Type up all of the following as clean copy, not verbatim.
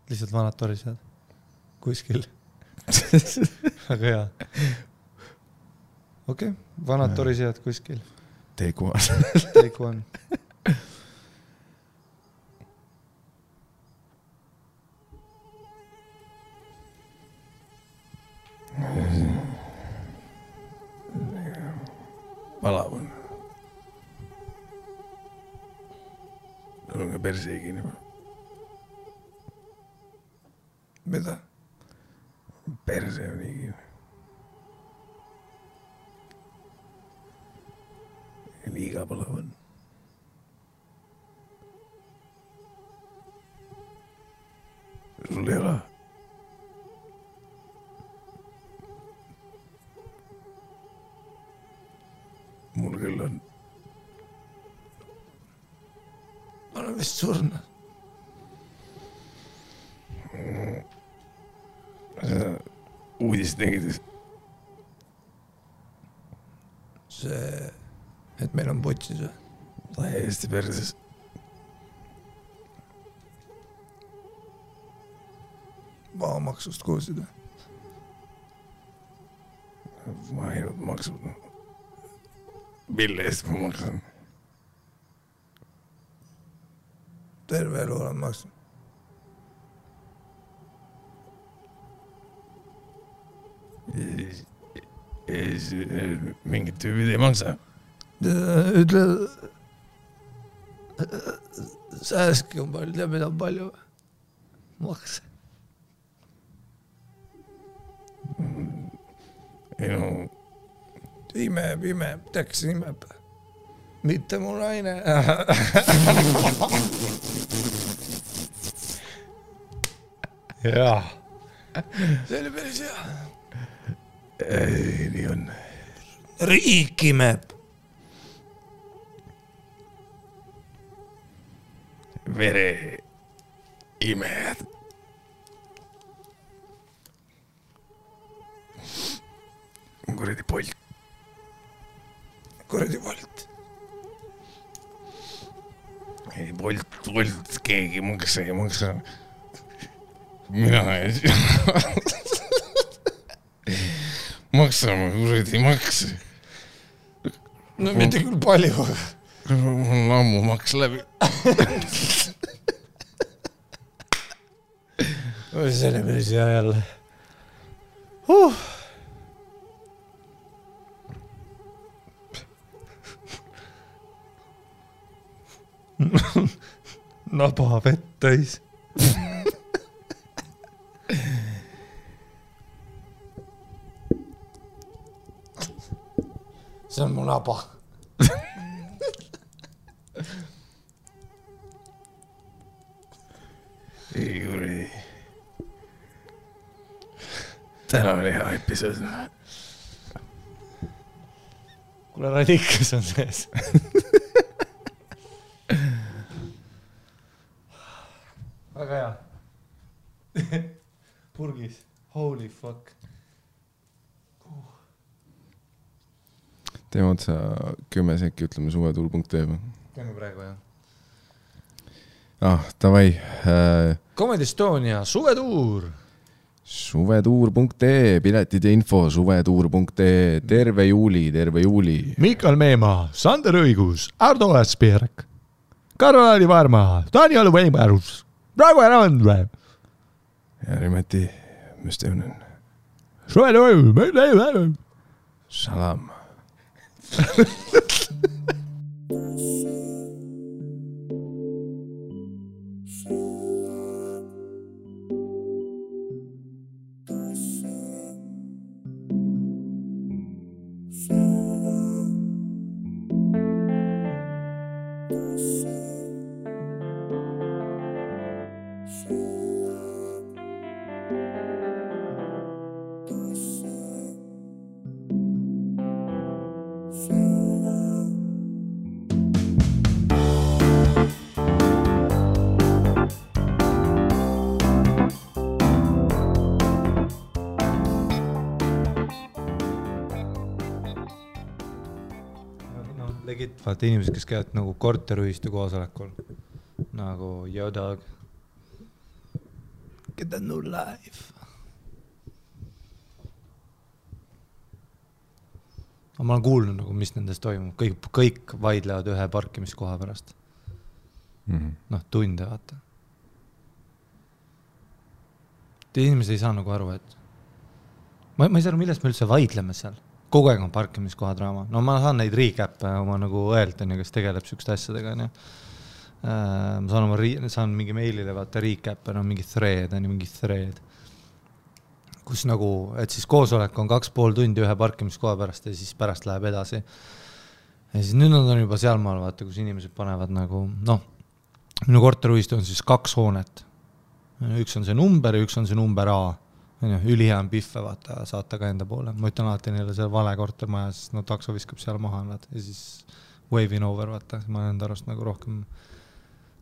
lihtsalt vanad torised kuskil. Väga hea. Okei, vanad torised kuskil. Take one. Palav on. Sul on ka perse kinni. Mida? Perse on kinni. Liiga palav on. Sul ei ole. Mul küll on. Ma olen vist surnud. Uudist nägid. See, et meil on putsis või? Täiesti perses. Maamaksust kuulsid või? Ma ainult maksud. Mille eest ma maksan? Terve elu olen maksnud. Mingid tüübid ei maksa. Ütle, sääski on palju, teab mida on palju makse. Ei no... Imeb, teaks imeb. Mitte mu naine. Jah. See oli päris hea. Ei, nii on. Riik imeb. Vere imejad. Kuradi Bolt. Kuradi Bolt. Ei, Bolt, keegi maksa. Mina ei maksame kuradi makse. No mitte küll palju. Mul on ammu maks läbi. See oli päris hea jälle. Naba vett täis. See on mu naba. Ei kuradi. Täna oli hea episood. Kuule, radikas on sees. Väga hea. Purgis. Holy fuck. Teeme otsa 10 sekki, ütleme suvetuul.tv. Teeme praegu, jah. Davai. Comedy Estonia, suvetuur. Suvetuur.ee, piletid ja info, suvetuur.ee, terve juuli. Mikael Meemaa, Sander Õigus, Ardo Asperg, Karol-Ari Varma, Daniel Weimarus, Praegu Randve. Ja Rimeti, mis teemnen? Suvetuur. Salam. Vaata inimesed, kes käivad nagu korterühistu koosolekul. Nagu, yo dog. Get a new life. Ma olen kuulnud, nagu, mis nendes toimub. Kõik vaidlevad ühe parkimiskoha pärast. Noh, tunde vaata. Inimesed ei saa nagu aru, et ma ei saa aru, millest me üldse vaidleme seal. Kogu aeg on parkimiskoha draama. No ma saan neid recap'e oma nagu õelt, kes tegeleb sükste asjadega. Ma saan mingi meilile vaata recap'e, mingi thread, kus nagu, et siis koosolek on 2,5 tundi ühe parkimiskoha pärast ja siis pärast läheb edasi. Ja siis nüüd nad on juba sealmaal, vaata, kus inimesed panevad nagu, minu korteriühistu on siis 2 hoonet. Üks on see number ja üks on see number A. Ülihea on pihve, vaata, saata ka enda poole. Ma ütlen alati neile see vale kortermaja, sest takso viskab seal maha nad ja siis waving over, vaata. Ma olen enda arust nagu rohkem,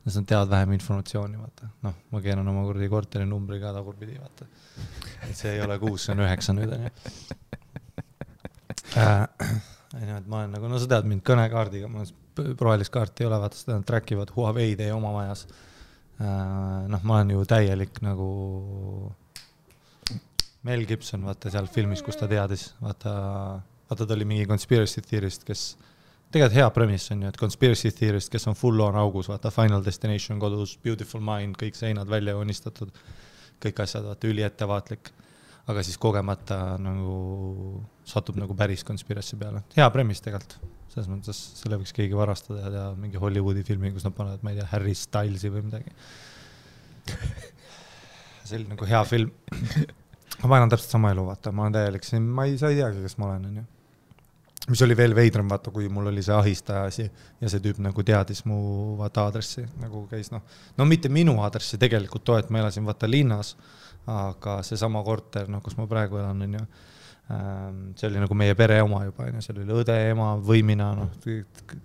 nad teavad vähem informatsiooni, vaata. Ma keeran oma korteri numbri ka tagurpidi, vaata. Et see ei ole 6, see on 9 nüüd. Ma olen nagu, sa tead mind kõnekaardiga, ma rohelist kaarti ei ole, vaata, seda trackivad Huawei teie oma majas. Ma olen ju täielik nagu Mel Gibson, vaata seal filmis, kus ta teadis, vaata ta oli mingi conspiracy theorist, kes tegelikult hea premise on ju, et conspiracy theorist, kes on full on augus, vaata Final Destination kodus, Beautiful Mind, kõik seinad välja joonistatud, kõik asjad, vaata üli ettevaatlik, aga siis kogemata nagu satub nagu päris conspiracy peale. Hea premise tegelikult, selles mõttes selle võiks keegi varastada ja teha mingi Hollywoodi filmi, kus nad panevad, ma ei tea, Harry Stylesi või midagi. See oli nagu hea film. Ma olen täpselt sama elu, vaata, ma olen täielik, ma ei teagi, kes ma olen, ju. Mis oli veel veidram, vaata, kui mul oli see ahistaja asi ja see tüüp nagu teadis mu vaata aadressi, nagu käis, mitte minu aadressi tegelikult too, et ma elasin vaata linnas, aga see sama korter, kus ma praegu elan, on ju, see oli nagu meie pere oma juba, on ju, seal oli õde, ema, võimina,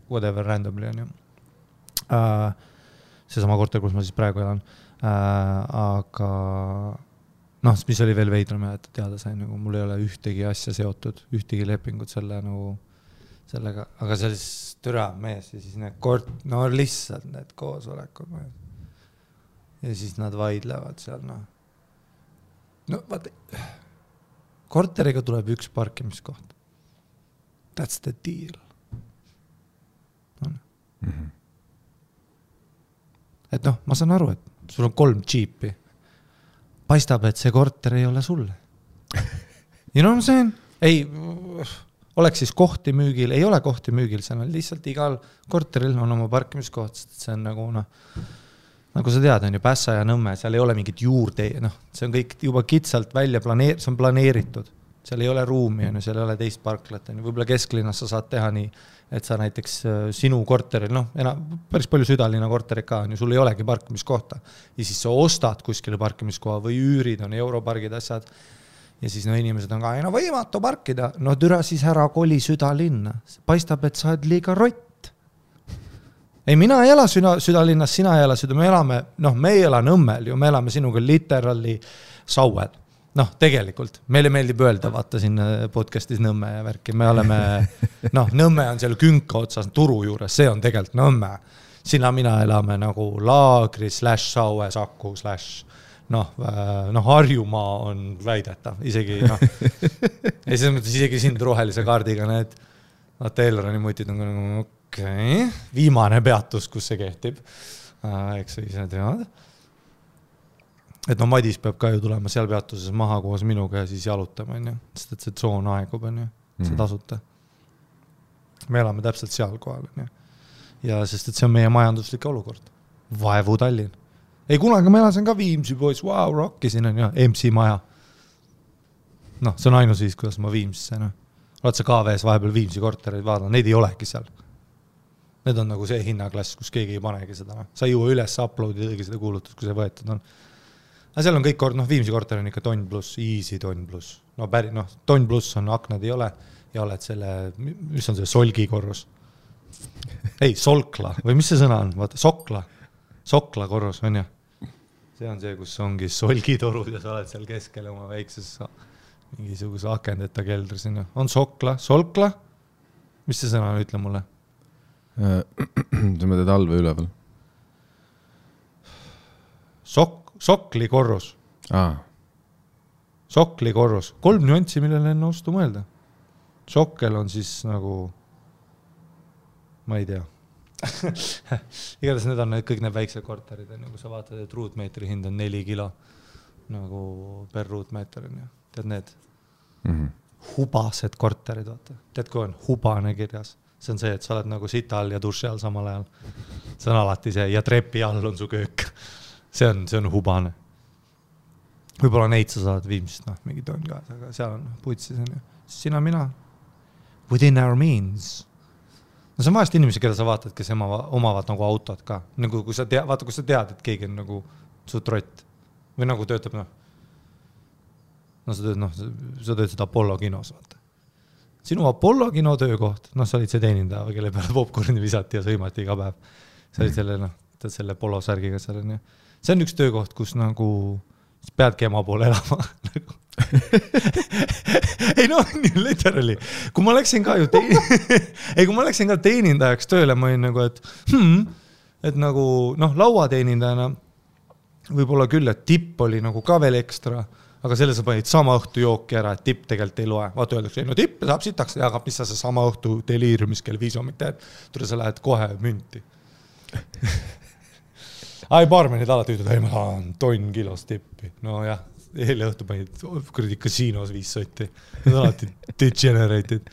whatever randomly, on ju. See sama korter, kus ma siis praegu elan, aga mis oli veel veidram, et teada sain, nagu mul ei ole ühtegi asja seotud, ühtegi lepingut sellega, aga see oli türa mees ja siis need lihtsalt need koosolekud ja siis nad vaidlevad seal, vaata, korteriga tuleb üks parkimiskoht. That's the deal. Et ma saan aru, et sul on 3 džiipi. Paistab, et see korter ei ole sulle. You know what I'm saying? Ei, oleks siis kohti müügil, ei ole kohti müügil, see on lihtsalt igal korteril on oma parkimiskoht, see on nagu, nagu sa tead, on ju Pässa ja Nõmme, seal ei ole mingit juurde, see on kõik juba kitsalt välja see on planeeritud, seal ei ole ruumi, seal ei ole teist parklat, võib-olla kesklinnas sa saad teha nii, et sa näiteks sinu korteril, päris palju südalinna korterid ka on ju, sul ei olegi parkimiskohta ja siis sa ostad kuskile parkimiskoha või üürid, on europargid asjad ja siis inimesed on ka, võimatu parkida, türa siis ära koli südalinna, paistab, et sa oled liiga rott. Ei, mina ei ela südalinnas, sina ei ela me elame, me ei ela Nõmmel ju, me elame sinuga literally Sauel. Tegelikult, meile meeldib öelda, vaata siin podcastis Nõmme ja värki, me oleme, Nõmme on seal künka otsas turu juures, see on tegelikult Nõmme. Sina mina elame nagu Laagri /Saue Saku Harjumaa on väidetav, isegi ja selles mõttes isegi sind rohelise kaardiga need Taylorani mutid on nagu viimane peatus, kus see kehtib, eks sa ise tead. Et Madis peab ka ju tulema seal peatuses maha koos minuga ja siis jalutama, sest et see tsoon aegub, see tasuta. Me elame täpselt seal kohal, ja sest et see on meie majanduslik olukord. Vaevu Tallinn. Ei, kunagi ma elasin ka Viimsi pois, wow, rockisin, MC maja. See on ainus viis, kuidas ma Viimsisse, Oled sa KVS vahepeal Viimsi kortereid vaadanud, neid ei olegi seal. Need on nagu see hinnaklass, kus keegi ei panegi seda. Sa ei juua üles uploadidagi seda kuulutust, kui see võetud on. Aga seal on kõik Viimsi korter on ikka tonn pluss, easy tonn pluss. Tonn pluss on, aknad ei ole ja oled selle, mis on see solgi korrus? Ei, solkla, või mis see sõna on? Vaata, sokla korrus, on ju? See on see, kus ongi solgitorud ja sa oled seal keskel oma väikses mingisuguse akendeta keldris. On solkla? Mis see sõna on, ütle mulle? Sa mõtled all või üleval? Sokli korrus. Sokli korrus. 3 nüanssi, millele enne ostu mõelda. Sokkel on siis nagu, ma ei tea. Igatahes need on kõik need väiksed korterid, nagu sa vaatad, et ruutmeetri hind on 4 kilo nagu per ruutmeeter. Tead need hubased korterid, vaata. Tead, kui on hubane kirjas? See on see, et sa oled nagu sita all ja duši all samal ajal. See on alati see ja trepi all on su köök. See on hubane. Võib-olla neid sa saad viimsest, mingi toon ka, aga seal on putsis. Sina mina. Within our means. No see on vahest inimesi, keda sa vaatad, kes omavad nagu autot ka. Nagu kui sa tead, et keegi on nagu su trott. Või nagu töötab, sa töötad Apollo kinos, vaata. Sinu Apollo kino töökoht, sa olid see teenindaja, kelle peale popcorni visati ja sõimati iga päev. Sa olid selle polo särgiga seal. See on üks töökoht, kus nagu peadki ema poole elama. Ei literally. Kui ma läksin ka ju kui ma läksin ka teenindajaks tööle, ma olin nagu, et nagu, lauateenindajana võib-olla küll, et tipp oli nagu ka veel ekstra, aga selle sa panid sama õhtu jooki ära, et tipp tegelikult ei loe. Vaata öeldakse, tipp saab sitaks, aga mis sa see sama õhtu deliiriumis kell 5 hommik teed, tule sa lähed kohe münti. Baarmenid alati ütled, ma tahan tonn kilos tippi. No jah, eile õhtu panid kuradi kasiinos 5 sotti. Need on alati degenerated.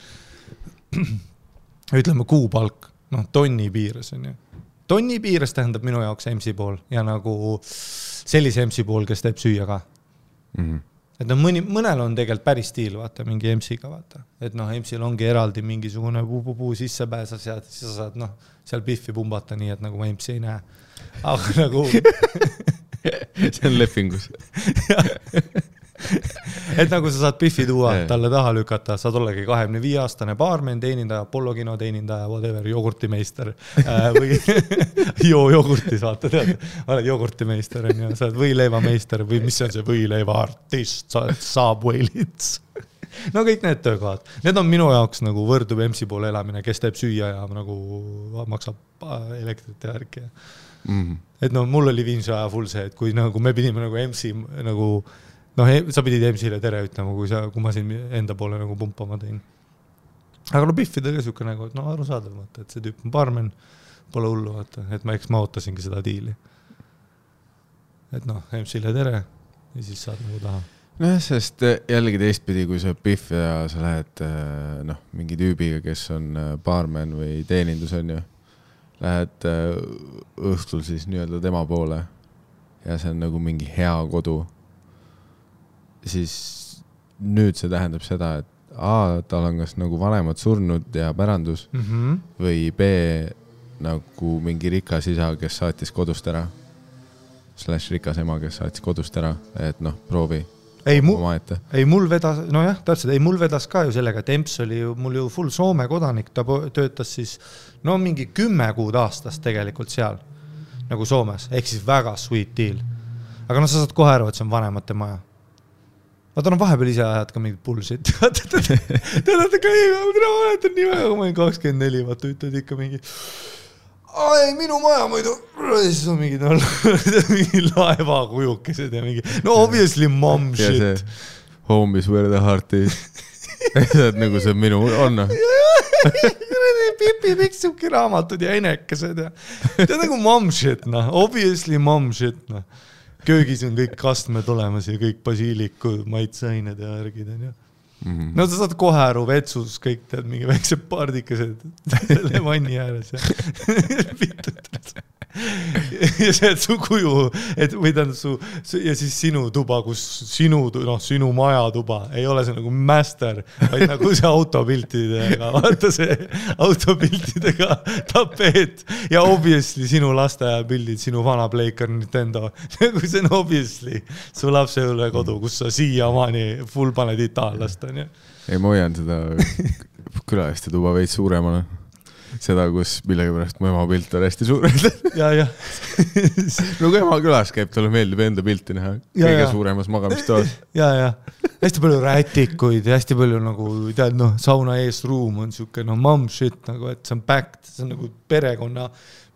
Ütleme kuupalk, tonni piires on ju. Tonni piires tähendab minu jaoks MC pool ja nagu sellise MC pool, kes teeb süüa ka. Et mõnel on tegelikult päris stiil, vaata, mingi MC-ga, vaata. Et MC-l ongi eraldi mingisugune puu sisse pääsas ja siis sa saad seal piffi pumbata nii, et nagu ma MC ei näe. Aga nagu... see on lepingus. Et nagu sa saad piffi tuua, talle taha lükata, saad ollegi 25-aastane baarmen, teenindaja, Apollo kino teenindaja, whatever, jogurtimeister või jogurtis, vaata, tead, oled jogurtimeister, sa oled võileivameister või mis on see võileiva artist, sa oled Subwaylits. No kõik need töökohad. Need on minu jaoks nagu võrdub MC poole elamine, kes teeb süüa ja nagu maksab elektrit ja värki. Et mul oli viimse aja full see, et kui nagu me pidime nagu MC nagu sa pidid MC-le tere ütlema, kui ma siin enda poole nagu pumpama tein. Aga biffidega siuke nagu, et arusaadav, et see tüüp on baarmen, pole hullu, et ma ootasingi seda diili. Et MC-le tere ja siis saad nagu taha. Sest jällegi teistpidi, kui sa biff ja sa lähed mingi tüübiga, kes on baarmen või teenindus on ju, lähed õhtul siis nii-öelda tema poole ja see on nagu mingi hea kodu, siis nüüd see tähendab seda, et tal on kas nagu vanemad surnud ja pärandus või B nagu mingi rikas isa, kes saatis kodust ära / rikas ema, kes saatis kodust ära, et proovi mul vedas, mul vedas ka ju sellega, et EMS oli mul ju full Soome kodanik, ta töötas siis mingi 10 kuud aastas tegelikult seal nagu Soomes, ehk siis väga sweet deal. Aga sa saad kohe aru, et see on vanemate maja. Vaata, vahepeal ise ajad ka mingit bullshit. Tead, ma mäletan nii väga, kui ma olin 24, vaata, ütled ikka mingi minu maja muidu, siis on mingi laeva kujukesed ja mingi, obviously mom shit. Home is where the heart is. Nagu see minu on. Pipi piksubki raamatud ja enekesed ja tead nagu mom shit, obviously mom shit, Köögis on kõik kastmed olemas ja kõik basiilikud, maitseained ja värgid on ja. Sa saad kohe aru vetsus, kõik tead mingi väikse pardikesed selle vanni ääres ja ja see, et su kuju, või tähendab ja siis sinu tuba, kus sinu maja tuba, ei ole see nagu master, vaid nagu see autopiltidega, vaata see autopiltidega tapeet ja obviously sinu lasteaja pildid, sinu vana Playcar Nintendo, nagu see on obviously su lapse üle kodu, kus sa siiamaani full paned itaallast, on ju. Ei, ma hoian seda külaliste tuba veits suuremana. Seda, kus millegi pärast mu ema pilt on hästi suur. Ja. No kui ema külas käib, talle meeldib enda pilti näha kõige suuremas magamistoas. Ja. Hästi palju rätikuid ja hästi palju nagu, tead, sauna ees ruum on siuke, mom shit, nagu, et see on packed, see on nagu perekonna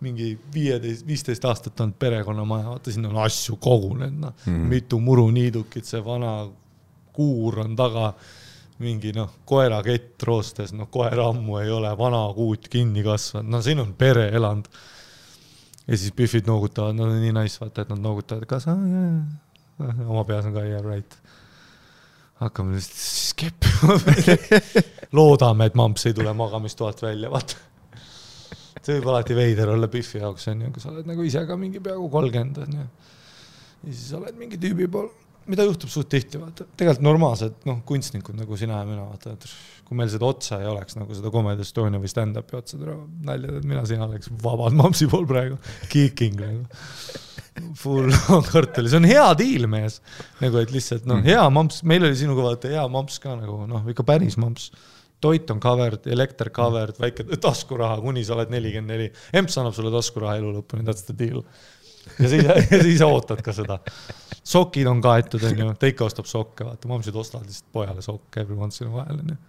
mingi 15 aastat on perekonnamaja, vaata sinna on asju kogunenud, noh, mitu muruniidukit, see vana kuur on taga, mingi koerakett roostes, koer ammu ei ole, vana kuut kinni kasvanud, siin on pere eland. Ja siis Biffid noogutavad, nad on nii nice, vaata, et nad noogutavad, kas oma peas on ka right. Hakkame siis keppima. Loodame, et mamps ei tule magamistoalt välja, vaata. See võib alati veider olla Biffi jaoks, kui sa oled nagu ise ka mingi peaaegu 30. Ja siis oled mingi tüübi pool, mida juhtub suht tihti, vaata. Tegelikult normaalsed kunstnikud nagu sina ja mina, vaata, et kui meil seda otsa ei oleks, nagu seda Comedy Estonia või stand-upi otsa naljad, et mina sina oleks vabad mampsi pool praegu, kicking nagu. Full on kartuli, see on hea deal mees, nagu et lihtsalt hea mamps, meil oli sinuga vaata hea mamps ka nagu, ikka päris mamps. Toit on covered, elekter covered, väike taskuraha, kuni sa oled 44. Emps annab sulle taskuraha elu lõpuni, that's the deal. Ja siis ootad ka seda. Sokid on kaetud, ta ikka ostab sokke, vaata, mamsid ostavad lihtsalt pojale sokke every once in a while.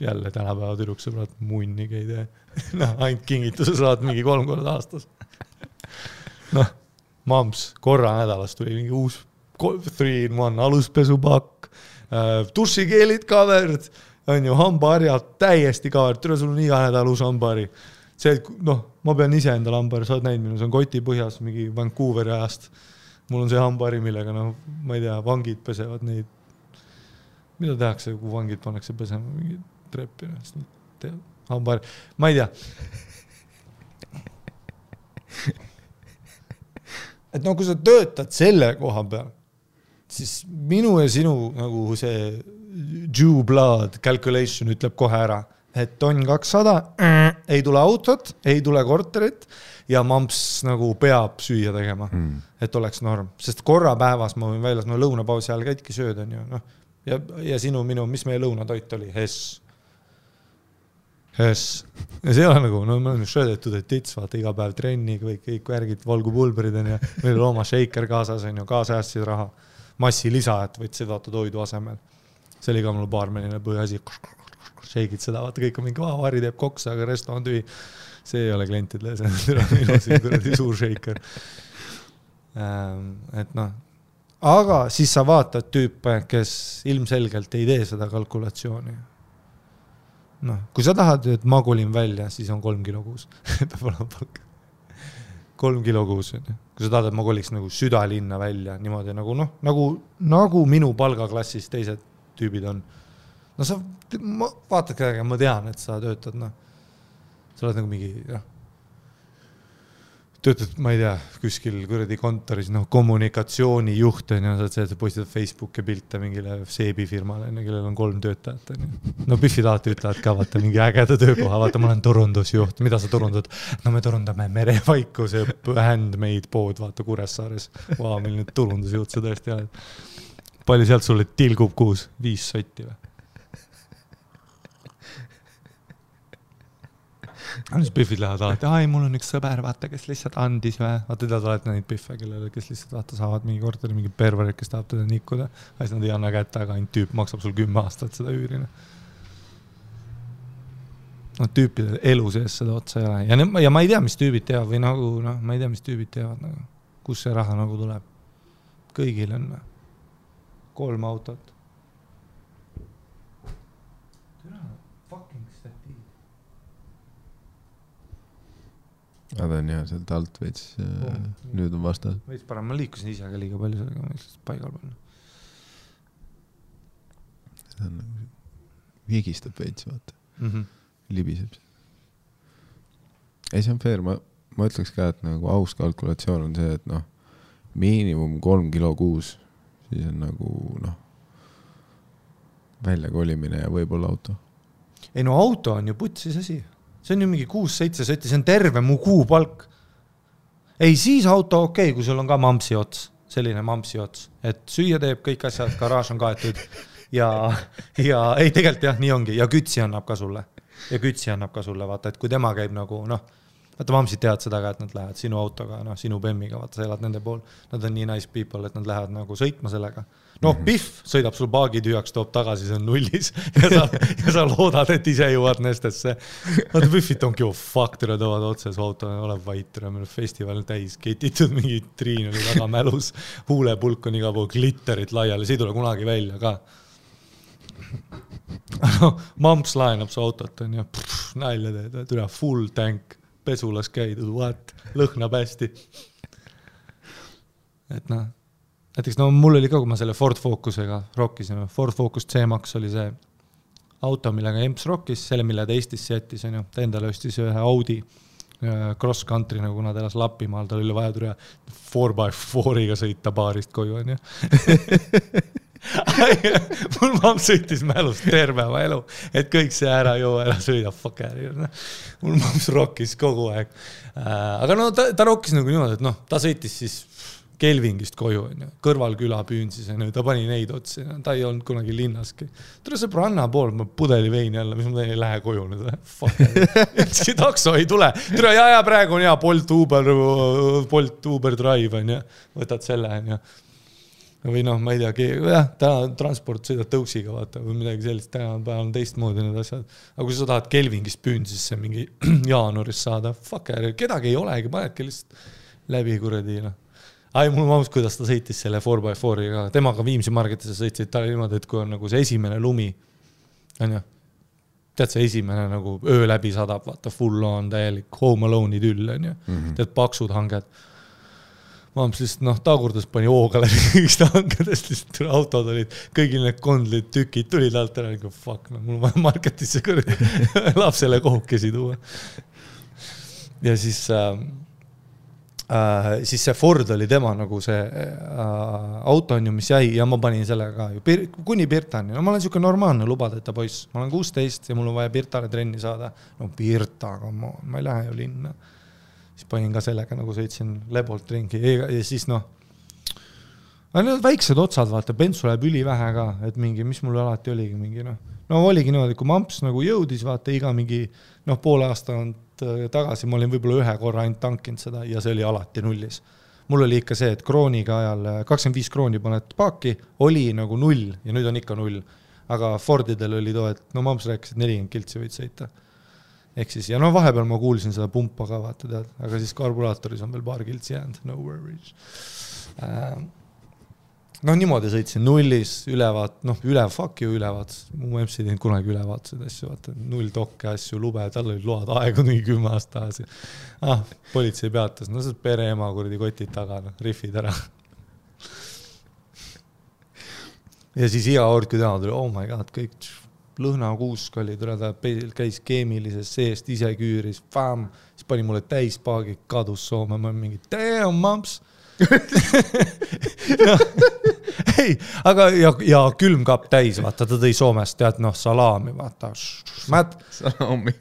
Jälle tänapäeva tüdruksõbrad munnigi ei tee. Ainult kingituse saad mingi 3 korda aastas. Mams, korra nädalas tuli mingi uus 3-in-1 aluspesupakk, dušikeelid covered, on ju, hambaharjad täiesti covered, tule sul on iga nädal uus hambahari. See, et ma pean ise endale hambahari, sa oled näinud minu, see on koti põhjas mingi Vancouveri ajast. Mul on see hambahari, millega, ma ei tea, vangid pesevad neid. Mida tehakse, kui vangid pannakse pesema mingi treppi? Hambahari, ma ei tea. Et kui sa töötad selle koha peal, siis minu ja sinu nagu see due blood calculation ütleb kohe ära, et on 200, ei tule autot, ei tule korterit ja mamps nagu peab süüa tegema, et oleks norm. Sest korra päevas ma võin väljas, lõunapausi ajal käidki sööd on ju. Ja minu, mis meie lõunatoit oli? Hess. Ja see ei ole nagu, me oleme šöödetud, et tits, vaata iga päev trenni, kõik värgid, valgupulberid on ja meil oli oma shaker kaasas on ju, kaasajassid raha. Massi lisa, et võid seda toidu asemel. See oli ka mul baarmenine põhiasi. Shake'id seda, vaata kõik on mingi vari teeb koksa, aga resto on tühi. See ei ole klientidele, see on suur shaker. Et aga siis sa vaatad tüüpe, kes ilmselgelt ei tee seda kalkulatsiooni. Kui sa tahad, et ma kolin välja, siis on 3 kilo kuus. 3 kilo kuus. Kui sa tahad, et ma koliks nagu südalinna välja, niimoodi nagu minu palgaklassis teised tüübid on. Sa vaatad käega, ma tean, et sa töötad, sa oled nagu mingi, töötad, ma ei tea, kuskil kuradi kontoris, kommunikatsioonijuht on ja sa postitad Facebooki pilte mingile seebifirmale, kellel on 3 töötajat. Biffid alati ütlevad ka, vaata mingi ägeda töökoha, vaata ma olen turundusjuht, mida sa turundad? Me turundame merevaiku, see handmade pood, vaata Kuressaares. Milline turundusjuht sa tõesti oled. Palju sealt sulle tilgub kuus? 5 sotti või? Siis Biffid lähevad alati, mul on üks sõber, vaata, kes lihtsalt andis või. Vaata, tead alati neid Biffe, kellele, kes lihtsalt vaata, saavad mingi korteri, mingi perverid, kes tahab teda nikkuda. Siis nad ei anna kätte, aga ainult tüüp maksab sul 10 aastat seda üürina. Tüüpide elu sees seda otsa ei ole. Ja ma ei tea, mis tüübid teevad või nagu, ma ei tea, mis tüübid teevad. Kus see raha nagu tuleb? Kõigil on 3 autot. Nad on jah, sealt alt veits, nüüd on vastas. Veits parem, ma liikusin ise ka liiga palju sellega, ma lihtsalt paigal peal. See on nagu viigistab veits, vaata. Libiseb. Ei, see on fair, ma ütleks ka, et nagu aus kalkulatsioon on see, et miinimum 3 kilo kuus, siis on nagu välja kolimine ja võib-olla auto. Ei auto on ju putsis asi. See on ju mingi 6-7 sotti, see on terve mu kuupalk. Ei, siis auto okei, kui sul on ka mampsi ots, selline mampsi ots, et süüa teeb kõik asjad, garaaž on kaetud ja ei, tegelikult jah, nii ongi, ja kütsi annab ka sulle, vaata, et kui tema käib nagu, vaata mamsid teavad seda ka, et nad lähevad sinu autoga, noh, sinu bemmiga, vaata, sa elad nende pool. Nad on nii nice people, et nad lähevad nagu sõitma sellega. Noh, Pihv sõidab sul paagi tühjaks, toob tagasi, see on nullis ja sa loodad, et ise jõuad Nestesse. Vaata, Pihvit ongi ju fuck, tere toovad otse su auto, oleb vait, tere, meil festival täis, ketitud mingi triin oli väga mälus, huulepulk on iga pool glitterit laiali, see ei tule kunagi välja ka. Mamps laenab su autot, on ju, nalja teed, tule full tank, pesulas käidud, what, lõhnab hästi. Et noh, näiteks no mul oli ka, kui ma selle Ford Focusega rockisin, Ford Focus C-Max oli see auto, millega Emps rockis, selle, mille ta Eestisse jättis, on ju, ta endale ostis ühe Audi cross country, nagu nad elas Lapimaal, tal oli vaja tule 4x4-iga sõita baarist koju, on ju. Mul mamm sõitis mälust tervema elu, et kõik see ära sõida, fuck äri. Mul mamms rockis kogu aeg. Aga no ta rockis nagu niimoodi, et noh, ta sõitis siis Kelvingist koju, kõrval küla püünsis, ta pani neid otsi, ta ei olnud kunagi linnaski. Tule see branna pool, ma pudeli veini alla, mis ma ei lähe koju nüüd. See takso ei tule. Tule ja praegu on hea Bolt Uber Drive, on ja. Võtad selle, on ja. Või noh, ma ei tea, täna transport sõidad tõuksiga, vaata, või midagi sellist, täna on teistmoodi need asjad. Aga kui sa tahad Kelvingist püünsisse mingi jaanuaris saada, fuck äri, kedagi ei olegi, panedki lihtsalt läbi kuradi, noh. Ai, mul maus, kuidas ta sõitis selle 4x4-iga. Temaga Viimsi marketisse sõitsid, ta oli niimoodi, et kui on nagu see esimene lumi, on ju, tead see esimene nagu öö läbi sadab, vaata, full on täielik home alone'i tüll, on ju, tead paksud hanged. Maams lihtsalt, noh, tagurdas pani hooga läbi kõigist hangedest, lihtsalt autod olid, kõigil need kondlid tükid tulid alt ära, nagu fuck, no mul vaja marketisse kõrge lapsele kohukesi tuua. Ja siis see Ford oli tema nagu see auto on ju, mis jäi ja ma panin sellega kuni Pirtani. No ma olen siuke normaalne lubadeta poiss. Ma olen 16 ja mul on vaja Pirtale trenni saada. No Pirta, aga ma ei lähe ju linna. Siis panin ka sellega nagu sõitsin lebolt ringi ja siis noh, need väiksed otsad, vaata, bensu läheb ülivähe ka, et mingi, mis mul alati oligi mingi, noh. No oligi niimoodi, kui mamps nagu jõudis, vaata, iga mingi, noh, poole aasta on tagasi, ma olin võib-olla ühe korra ainult tankinud seda ja see oli alati nullis. Mul oli ikka see, et krooniga ajal 25 krooni paned paaki, oli nagu 0 ja nüüd on ikka 0. Aga Fordidel oli too, et no mamps rääkis, et 40 kiltsi võid sõita. Ehk siis, ja no vahepeal ma kuulsin seda pumpa ka, vaata tead, aga siis karburaatoris on veel paar kiltsi jäänud, no worries. No niimoodi sõitsin nullis, ülevaat, noh, fuck you ülevaat, mu MC teinud kunagi ülevaatused asju, vaata, 0 tokke asju, lube, tal olid load aegu nii 10 aasta tagasi. Politsei peatas, no see pere ema kuradi kotid taga, no, riffid ära. Ja siis iga kord, kui täna tuli, oh my god, kõik lõhnakuusk oli, ta käis keemilises seest, ise küüris, fam, siis pani mulle täis paagi, kadus Soome, ma mingi, damn, mamps. Ei, aga ja külmkapp täis, vaata, ta tõi Soomest, tead, noh, salaami, vaata. Salaami.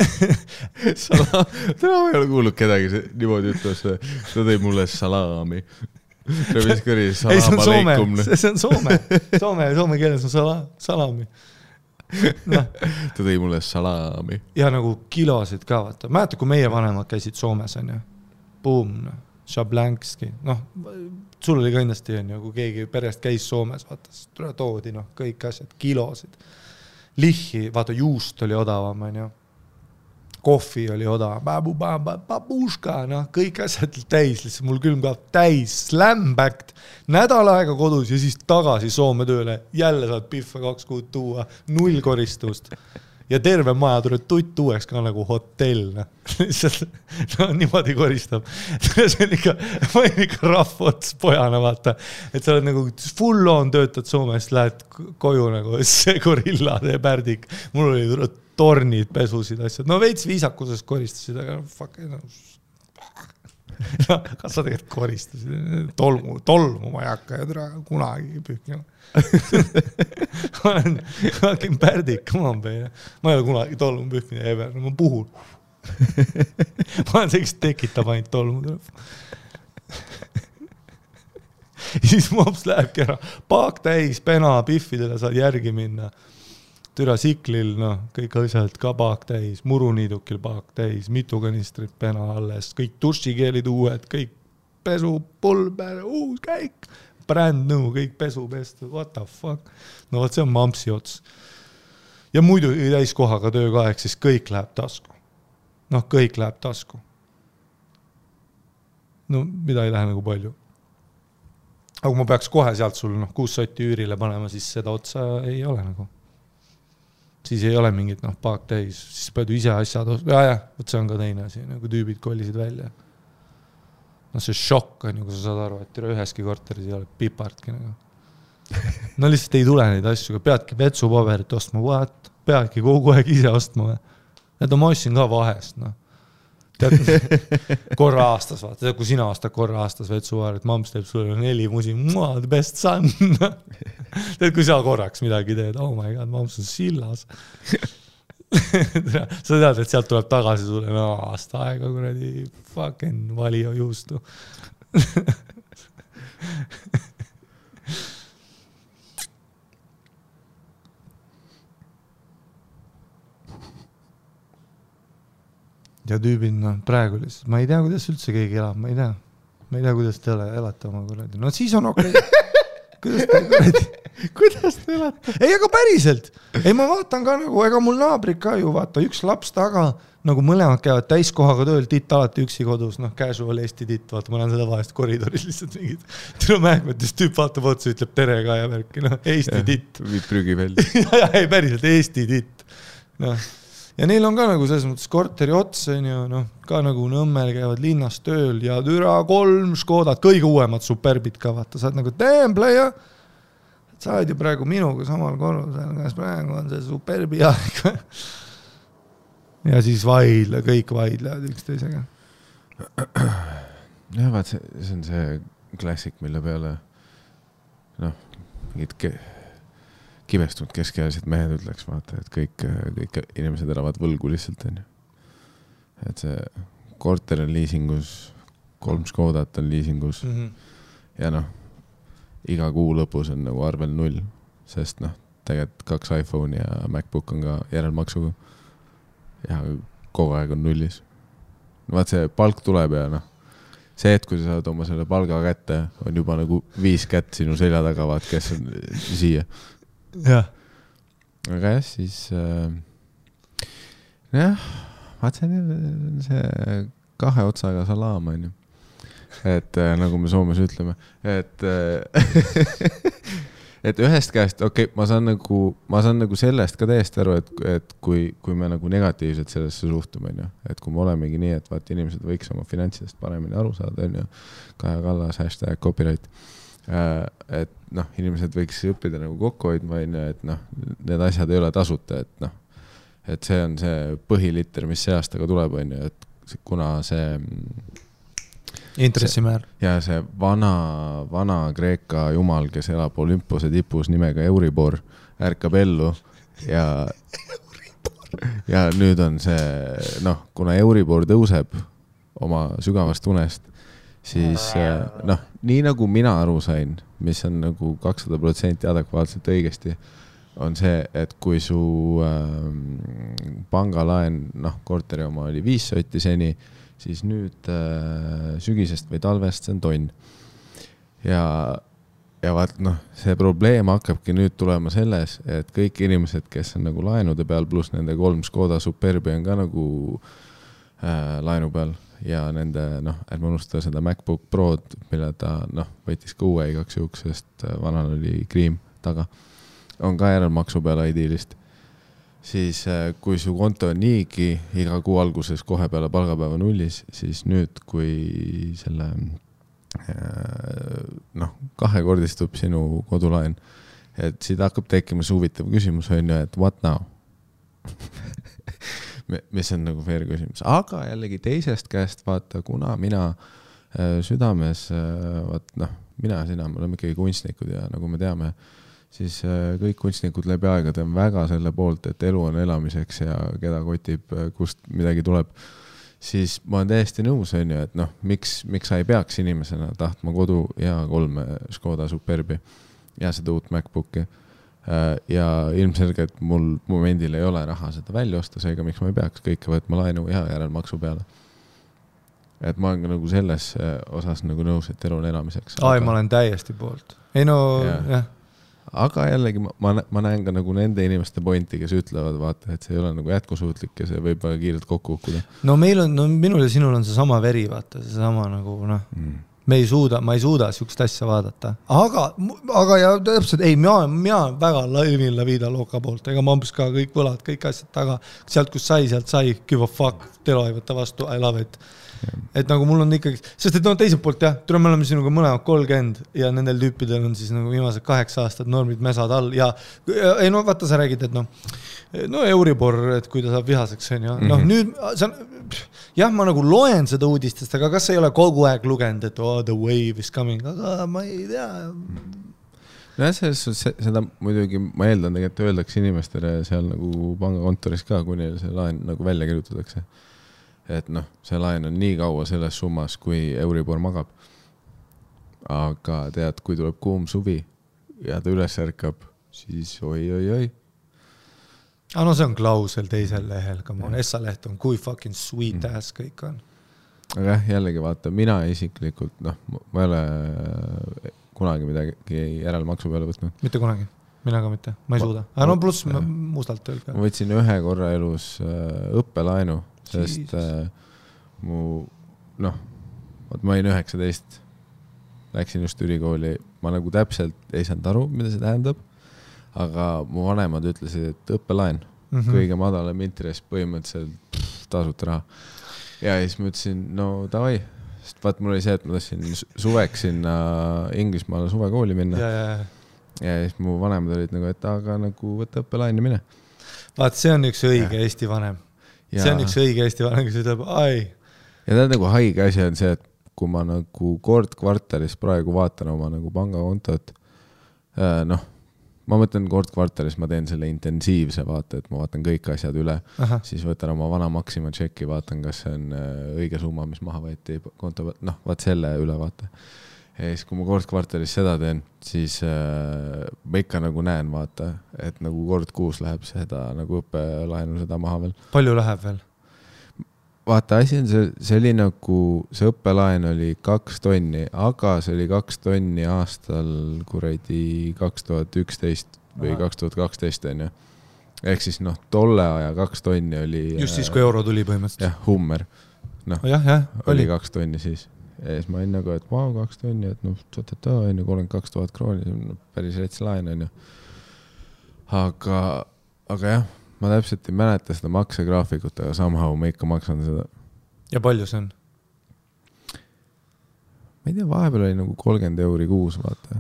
Täna ei ole kuulnud kedagi niimoodi ütles, ta tõi mulle salaami. Ei, see on Soome, see on Soome keeles on salami. No. Ta tõi mulle salaami. Ja nagu kilosid ka, vaata. Mäeta, kui meie vanemad käisid Soomes, on ju. Boom, noh. Šablankski, noh, sul oli kindlasti, on ju, kui keegi perest käis Soomes, vaata, toodi, noh, kõik asjad, kilosid. Lihhi, vaata, juust oli odavam, on ju. Kohvi oli odavam, babuška, noh, kõik asjad täis, lihtsalt mul külmkapp täis, slambacked, nädal aega kodus ja siis tagasi Soome tööle, jälle saad pihva 2 kuud tuua, 0 koristust. Ja terve maja tuleb tutt uueks ka nagu hotell. No, niimoodi koristab. See on ikka, ma olen ikka rahvots pojana, vaata. Et sa oled nagu full on töötad Soomest, lähed koju nagu see gorilla, see pärdik. Mul oli tornid, pesusid, asjad. No veits viisakusest koristasid, aga fuck, no. Kas sa tegelikult koristasid? Tolmu ma ei hakka ja kunagi pühkima. Ma olen pärdik, come on, peine. Ma ei ole kunagi tolmu pühkmine ever, ma puhun. Ma olen see, kes tekitab ainult tolmu. Ja siis mops lähebki ära. Paak täis, pena, piffidele saad järgi minna. türa siklil, noh, kõik asjad ka paak täis, muruniidukil paak täis, mitu kanistrit pena alles, kõik dušikeelid uued, kõik pesu, pulber, uus käik, brand new, kõik pesu pestud, what the fuck. No võt, see on mampsi ots. Ja muidu täiskohaga töökaeg, siis kõik läheb tasku. Noh, kõik läheb tasku. No, mida ei lähe nagu palju. Aga kui ma peaks kohe sealt sul 6 sotti üürile panema, siis seda otsa ei ole nagu. Siis ei ole mingit paak täis, siis pead ise asjad võt see on ka teine asi, nagu tüübid kollisid välja. No see šokk on, kui sa saad aru, et üheski korteris ei ole pipartki nagu. No lihtsalt ei tule neid asju, peadki vetsupaberit ostma, peadki kogu aeg ise ostma. Need ma ostsin ka vahest, noh. Tead, korra aastas, vaata, kui sina ostad korra aastas vetsupaberit, mamps teeb sulle 4 musi, the best son. Tead, kui sa korraks midagi teed, oh my god, mamps on sillas. Sa tead, et sealt tuleb tagasi sulle aasta aega, kuradi fucking valio juustu. Ja tüübid, praegu lihtsalt, ma ei tea, kuidas üldse keegi elab, ma ei tea, kuidas te elate oma kuradi. No siis on okei. Kuidas te elate? Ei, aga päriselt. Ei, ma vaatan ka nagu, ega mul naabrid ka ju, vaata, üks laps taga, nagu mõlemad käivad täiskohaga tööl, titt alati üksi kodus, casual Eesti titt, vaata, ma näen seda vahest koridoris lihtsalt mingid. Tule mähkmetes tüüp vaatab otsa, ütleb tere ka ja värki, Eesti titt. Viid prügi välja. Ja, ei, päriselt, Eesti titt. Ja neil on ka nagu selles mõttes korteri ots, ka nagu Nõmmel käivad linnas tööl ja türa 3 Škodad, kõige uuemad superbid ka, vaata, saad nagu templeja, sa oled ju praegu minuga samal korrusel, kas praegu on see superbi aeg. Ja siis kõik vaidlevad üksteisega. Ja vaat, see on see klassik, mille peale mingid kibestunud keskealised mehed ütleks, vaata, et kõik inimesed elavad võlgu lihtsalt, on ju. Et see korter on liisingus, 3 Škodat on liisingus ja iga kuu lõpus on nagu arvel 0, sest tegelikult 2 iPhone ja MacBook on ka järelmaksuga ja kogu aeg on 0. Vaat see palk tuleb ja see, et kui sa saad oma selle palga kätte, on juba nagu 5 kätt sinu selja taga, vaat, kes on siia. Ja. Aga jah, siis vaat see 2 otsaga salaam on ju. Et nagu me Soomes ütleme, et ühest käest, ma saan nagu sellest ka täiesti aru, et kui me nagu negatiivselt sellesse suhtume, on ju, et kui me olemegi nii, et vaat inimesed võiks oma finantsidest paremini aru saada, on ju, Kaja Kallas, #copyright, et inimesed võiks õppida nagu kokku hoidma, et need asjad ei ole tasuta, et see on see põhilitter, mis see aastaga tuleb, on ju, et kuna see intressimäär ja see vana Kreeka jumal, kes elab Olümpose tipus nimega Euribor, ärkab ellu ja nüüd on see, kuna Euribor tõuseb oma sügavast unest, siis nii nagu mina aru sain, mis on nagu 200% adekvaatselt õigesti, on see, et kui su pangalaen, korteri oma oli 5 sotti seni, siis nüüd sügisest või talvest see on tonn. Ja vaat, see probleem hakkabki nüüd tulema selles, et kõik inimesed, kes on nagu laenude peal, pluss nende 3 Škoda Superbi on ka nagu laenu peal ja nende, ärme unustada seda MacBook Prod, mille ta võitis ka uue igaks juhuks, sest vanal oli kriim taga, on ka järelmaksu peal idealist. Siis kui su konto on niigi iga kuu alguses kohe peale palgapäeva 0, siis nüüd, kui selle 2-kordistub sinu kodulaen, et siit hakkab tekkima see huvitav küsimus, on ju, et what now? Mis on nagu fair küsimus. Aga jällegi teisest käest vaata, kuna mina südames, mina ja sina, me oleme ikkagi kunstnikud ja nagu me teame, siis kõik kunstnikud läbi aegade on väga selle poolt, et elu on elamiseks ja keda kotib, kust midagi tuleb, siis ma olen täiesti nõus, on ju, et miks sa ei peaks inimesena tahtma kodu ja 3 Škoda Superbi ja seda uut MacBooki. ja ilmselgelt mul momendil ei ole raha seda välja osta, seega miks ma ei peaks kõike võtma laenu ja järelmaksu peale. Et ma olen ka nagu selles osas nagu nõus, et elu on elamiseks. Ai, ma olen täiesti poolt. Ei no, jah. Aga jällegi ma näen ka nagu nende inimeste pointi, kes ütlevad, vaata, et see ei ole nagu jätkusuutlik ja see võib väga kiirelt kokku hukkuda. No meil on, minul ja sinul on see sama veri, vaata, see sama nagu, noh, ma ei suuda sihukest asja vaadata. Aga ja täpselt, ei, mina väga laivin la vida loka poolt, ega ma umbes ka kõik võlad, kõik asjad taga, sealt kus sealt sai, give a fuck, telo ei võtta vastu, I love it. Et nagu mul on ikkagi, sest et no teiselt poolt jah, me oleme sinuga mõlemad 30 ja nendel tüüpidel on siis nagu viimased 8 aastad normid mesad all ja ei no vaata sa räägid, et no Euribor, et kui ta saab vihaseks on ju, noh nüüd jah, ma nagu loen seda uudistest, aga kas ei ole kogu aeg lugenud, et the wave is coming, aga ma ei tea. No seda muidugi ma eeldan tegelikult öeldakse inimestele seal nagu pangakontoris ka, kui neil see laen nagu välja kirjutatakse. Et noh, see laen on nii kaua selles summas, kui Euribor magab. Aga tead, kui tuleb kuum suvi ja ta üles ärkab, siis oi. No see on klausel teisel lehel, Essa-leht on kui fucking sweet ass kõik on. Aga jällegi vaata, mina isiklikult, noh, ma ei ole kunagi midagi järelmaksu peale võtnud. Mitte kunagi, mina ka mitte, ma ei suuda. Aga no pluss mustalt öelge. Ma võtsin ühe korra elus õppelaenu, sest ma olin 19, läksin just ülikooli, ma nagu täpselt ei saanud aru, mida see tähendab, aga mu vanemad ütlesid, et õppelaen, kõige madalam intress põhimõtteliselt tasuta raha. Ja siis ma ütlesin, no davai, sest vaat mul oli see, et ma tahtsin suveks sinna Inglismaale suvekooli minna. Ja siis mu vanemad olid nagu, et aga nagu võtta õppelaen ja mine. Vaat see on üks õige Eesti vanem. See on üks õige Eesti vanem, kes ütleb, ai. Ja ta nagu haige asi on see, et kui ma nagu kord kvartalis praegu vaatan oma nagu pangakontot, noh, ma mõtlen kord kvartalis, ma teen selle intensiivse vaata, et ma vaatan kõik asjad üle, siis võtan oma vana Maxima tšeki, vaatan, kas see on õige summa, mis maha võeti konto, noh, vaat selle üle vaata. Ja siis, kui ma kord kvartalis seda teen, siis ma ikka nagu näen, vaata, et nagu kord kuus läheb seda nagu õppelaenu seda maha veel. Palju läheb veel? Vaata, asi on see oli nagu, see õppelaen oli 2 tonni, aga see oli 2 tonni aastal kuradi 2011 või 2012 on ju. Ehk siis noh, tolle aja 2 tonni oli... Just siis, kui euro tuli põhimõtteliselt. Jah, Hummer. Noh, oli 2 tonni siis. Ja siis ma olin nagu, et 2 tonni, et noh, 32 000 krooni, päris rets laen on ju. Aga jah, ma täpselt ei mäleta seda maksegraafikut, aga somehow ma ikka maksan seda. Ja palju see on? Ma ei tea, vahepeal oli nagu 30 € kuus, vaata.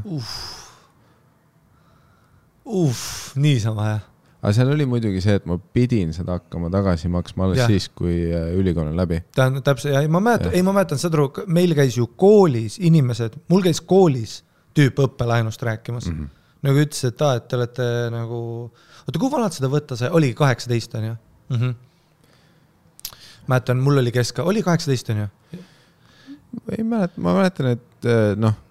Niisama jah. Aga seal oli muidugi see, et ma pidin seda hakkama tagasi maksma alles siis, kui ülikool on läbi. Täpselt, ja ma mäletan seda, meil käis ju koolis inimesed, mul käis koolis tüüp õppelainust rääkimas. Nagu ütles, et te olete nagu, oota, kui vanad seda võtta sai? Oli 18 on ju? Mäletan, mul oli oli 18 on ju? Ei mäleta, ma mäletan, et noh,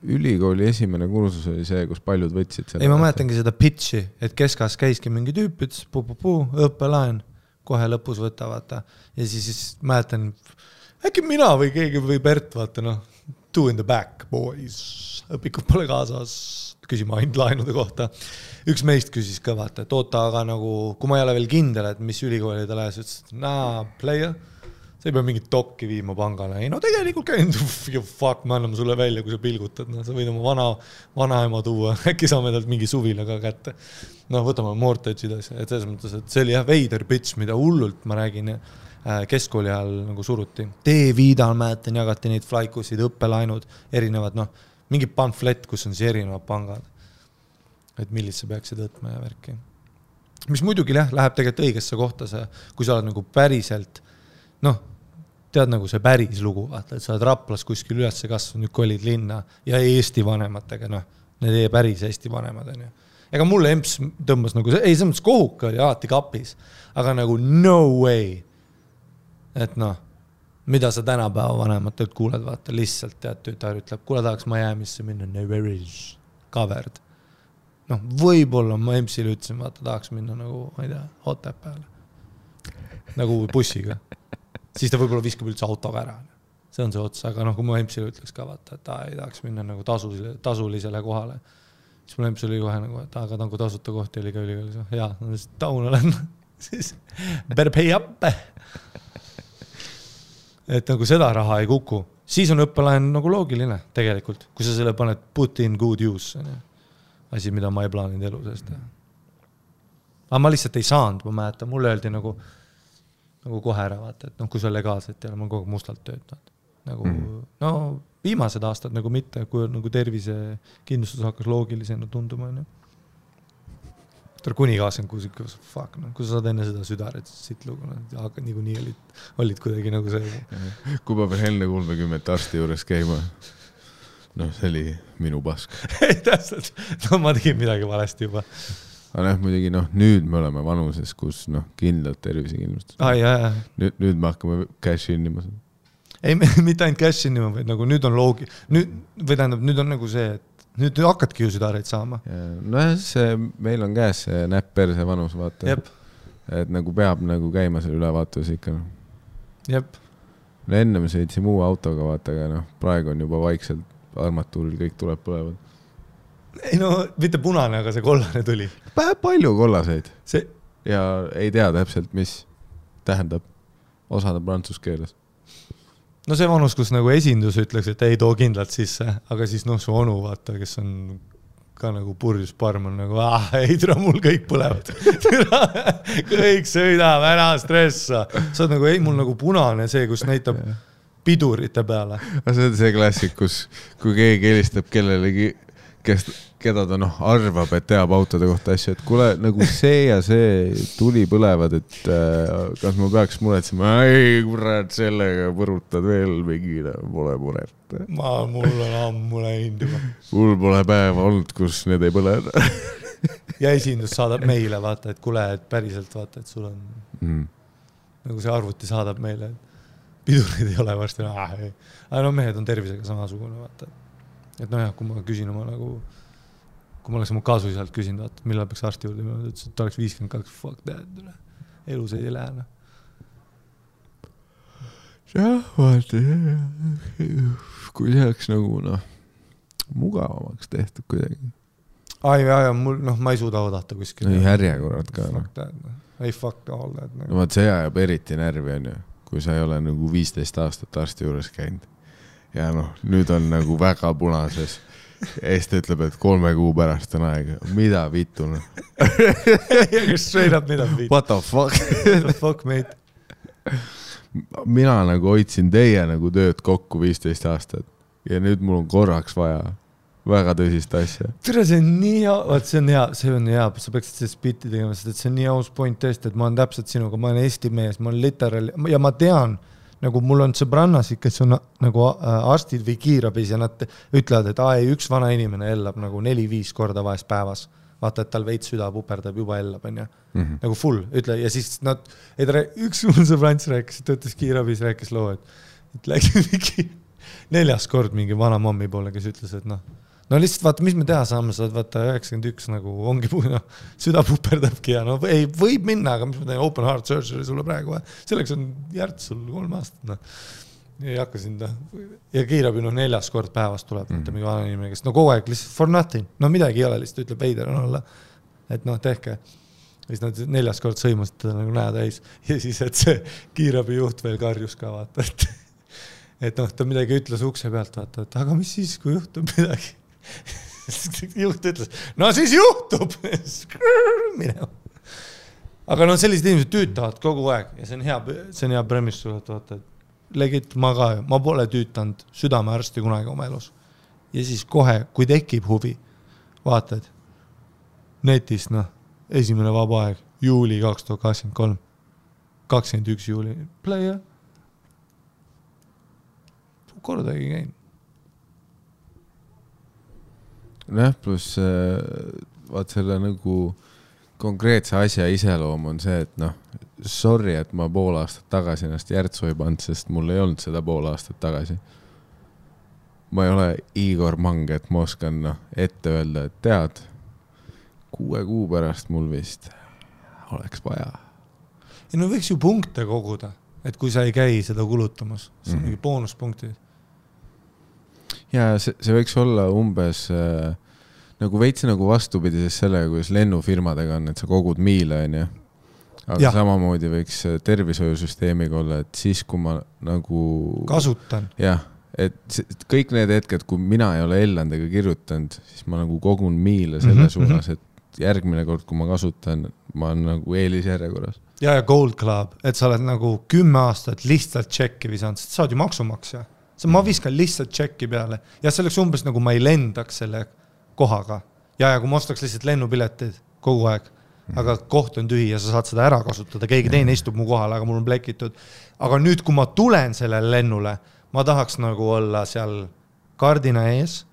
ülikooli esimene kursus oli see, kus paljud võtsid seda. Ei, ma mäletangi seda pitchi, et keskas käiski mingi tüüp, ütles õppelaen, kohe lõpus võtta, vaata. Ja siis mäletan, äkki mina või keegi või Bert, vaata, noh, 2 in the back, boys, õpikud pole kaasas, küsima ainult laenude kohta. Üks meist küsis ka, vaata, et oota, aga nagu, kui ma ei ole veel kindel, et mis ülikooli ta lähes, ütles, et player, sa ei pea mingit dokki viima pangale. Ei, no tegelikult käinud, fuck, me anname sulle välja, kui sa pilgutad. No, sa võid oma vanaema tuua, äkki saame talt mingi suvila ka kätte. No, võtame mortage'id asja. Et selles mõttes, et see oli jah veider pitch, mida hullult, ma räägin, keskkooli ajal nagu suruti. T-viidal mäletan, jagati neid flaikusid, õppelaenud, erinevad, noh, mingi pamflet, kus on siis erinevad pangad. Et millist sa peaksid võtma ja värki. Mis muidugi läheb tegelikult õigesse kohta see, kui sa oled nagu päriselt, noh, tead nagu see päris lugu, vaata, et sa oled Raplas kuskil üles kasvanud, nüüd kolid linna ja Eesti vanematega, noh, need päris Eesti vanemad on ju. Ega mulle emps tõmbas nagu, ei, see mõttes kohuka oli alati kapis, aga nagu no way, et noh, mida sa tänapäeva vanematelt kuuled, vaata, lihtsalt tead, tütar ütleb, kuule tahaks Miami'sse minna, never is covered. võib-olla ma MC-le ütlesin, vaata, tahaks minna nagu, ma ei tea, Otepääle. Nagu bussiga. Siis ta võib-olla viskab üldse autoga ära. See on see ots, aga kui ma MC-le ütleks ka, vaata, et ei tahaks minna nagu tasulisele kohale. Siis mul MC oli kohe nagu, et aga tangu tasuta kohti oli ka ülikoolis. Jaa, taun olen. Siis better pay up. Et nagu seda raha ei kuku. Siis on õppelaen nagu loogiline tegelikult, kui sa selle paned put in good use. Asi, mida ma ei plaaninud elu seest. Aga ma lihtsalt ei saanud, ma mäletan. Mulle öeldi nagu kohe ära, vaata, et kui sa legaalselt ja ma kogu mustalt töötanud. Nagu, viimased aastad nagu mitte, kui nagu tervise kindlustus hakkas loogilisena tunduma. Kuni 26, fuck, kui sa saad enne seda südaret, siit lugu, aga nii olid kuidagi nagu see. Kui ma veel enne 30 arsti juures käima, see oli minu pask. Ei, täpselt, ma tegin midagi valesti juba. Aga muidugi, nüüd me oleme vanuses, kus kindlalt tervisekindlustus. Nüüd me hakkame cash innima. Ei, mitte ainult cash innima, vaid nagu nüüd on nüüd on nagu see, et nüüd hakkadki ju südareid saama. Meil on käes see näpp perse vanus, vaata. Jep. Et nagu peab nagu käima selle ülevaatus ikka. Jep. Enne me sõitsime uue autoga, vaata, aga praegu on juba vaikselt armatuuril kõik tuleb põlevad. Ei mitte punane, aga see kollane tuli. Palju kollaseid. Ja ei tea täpselt, mis tähendab osada prantsuskeeles. See vanus, kus nagu esindus ütleks, et ei too kindlalt sisse, aga siis su onu, vaata, kes on ka nagu purjus parm, on nagu, ei tere, mul kõik põlevad. Kõik sõidab, ära stressa. Sa oled nagu, ei, mul nagu punane see, kus näitab pidurite peale. See on see klassik, kui keegi helistab kellelegi, keda ta arvab, et teab autode kohta asju, et kuule, nagu see ja see tuli põlevad, et kas ma peaks muretsema, ei, kurat, sellega põrutad veel mingile, pole muret. Mul on ammu läinud juba. Mul pole päeva olnud, kus need ei põle. Ja esindus saadab meile, vaata, et kuule, et päriselt vaata, et sul on nagu see arvuti saadab meile, et pidurid ei ole varsti. Aga mehed on tervisega samasugune, vaata. Et kui ma küsin oma nagu, kui ma oleks oma kaasuisalt küsinud, vaata, millal peaks arsti juurde, ma ütlesin, et ta oleks 52, fuck that, elus ei lähe. Vaata, kui see oleks nagu, mugavamaks tehtud kuidagi. Ma ei suuda oodata kuskil. Ei järjekorrad ka. Fuck that, ei fuck all that. Vaat see ajab eriti närvi, on ju, kui sa ei ole nagu 15 aastat arsti juures käinud. Ja nüüd on nagu väga punases. Ja siis ta ütleb, et 3 kuu pärast on aega. Mida vittu? Straight up, mida vittu? What the fuck? What the fuck, mate? Mina nagu hoidsin teie nagu tööd kokku 15 aastat. Ja nüüd mul on korraks vaja väga tõsist asja. Tere, see on nii hea. Vaat see on hea. Sa peaksid see spitti tegema, sest et see on nii aus point tõesti, et ma olen täpselt sinuga. Ma olen Eesti mees, ma olen literaal. Ja ma tean, nagu mul on sõbrannasid, kes on nagu arstid või kiirabis ja nad ütlevad, et üks vana inimene ellab nagu 4-5 korda vahest päevas. Vaata, et tal veits süda puperdab, juba ellab, on ju. Nagu full, ütle. Ja siis üks mul sõbrants rääkis, töötas kiirabis, rääkis loo, et läks mingi 4. kord mingi vana mommi poole, kes ütles, et lihtsalt vaata, mis me teha saame, sa vaata 91 nagu ongi süda puperdabki ja ei, võib minna, aga mis ma teen open heart surgery sulle praegu, selleks on järts sul 3 aastat, ei hakka sind, ja kiirabi 4. kord päevast tuleb, mingi vana inimene, kes kogu aeg lihtsalt for nothing, midagi ei ole, lihtsalt ütleb veider on olla, et tehke, ja siis nad 4. kord sõimasid teda nagu näe täis, ja siis, et see kiirabi juht veel karjus ka vaata, et ta midagi ütles ukse pealt, vaata, et aga mis siis, kui juhtub midagi? Juht ütles, siis juhtub minema. Aga sellised inimesed tüütavad kogu aeg ja see on hea premis sulle, et vaata, et legit ma pole tüütanud südamearsti kunagi oma elus. Ja siis kohe, kui tekib huvi, vaatad netis, esimene vaba aeg, juuli 2023, 21 juuli, playa. Kordagi käin. Pluss vaat selle nagu konkreetse asja iseloom on see, et sorry, et ma pool aastat tagasi ennast järtsu ei pannud, sest mul ei olnud seda pool aastat tagasi. Ma ei ole Igor Mang, et ma oskan ette öelda, et tead, 6 kuu pärast mul vist oleks vaja. Ja no võiks ju punkte koguda, et kui sa ei käi seda kulutamas, see on mingi boonuspunktid. Ja see võiks olla umbes nagu veits nagu vastupidises sellega, kuidas lennufirmadega on, et sa kogud miile, on ju. Aga samamoodi võiks tervishoiusüsteemiga olla, et siis, kui ma nagu kasutan. Jah, et kõik need hetked, kui mina ei ole Ellandega kirjutanud, siis ma nagu kogun miile selle suunas, et järgmine kord, kui ma kasutan, ma olen nagu eelisjärjekorras. Ja Gold Club, et sa oled nagu 10 aastat lihtsalt tšekki visanud, sest sa oled ju maksumaksja. Ma viskan lihtsalt tšekki peale ja selleks umbes nagu ma ei lendaks selle kohaga. Ja kui ma ostaks lihtsalt lennupiletid kogu aeg, aga koht on tühi ja sa saad seda ära kasutada, keegi teine istub mu kohal, aga mul on plekitud. Aga nüüd, kui ma tulen sellele lennule, ma tahaks nagu olla seal kardina ees,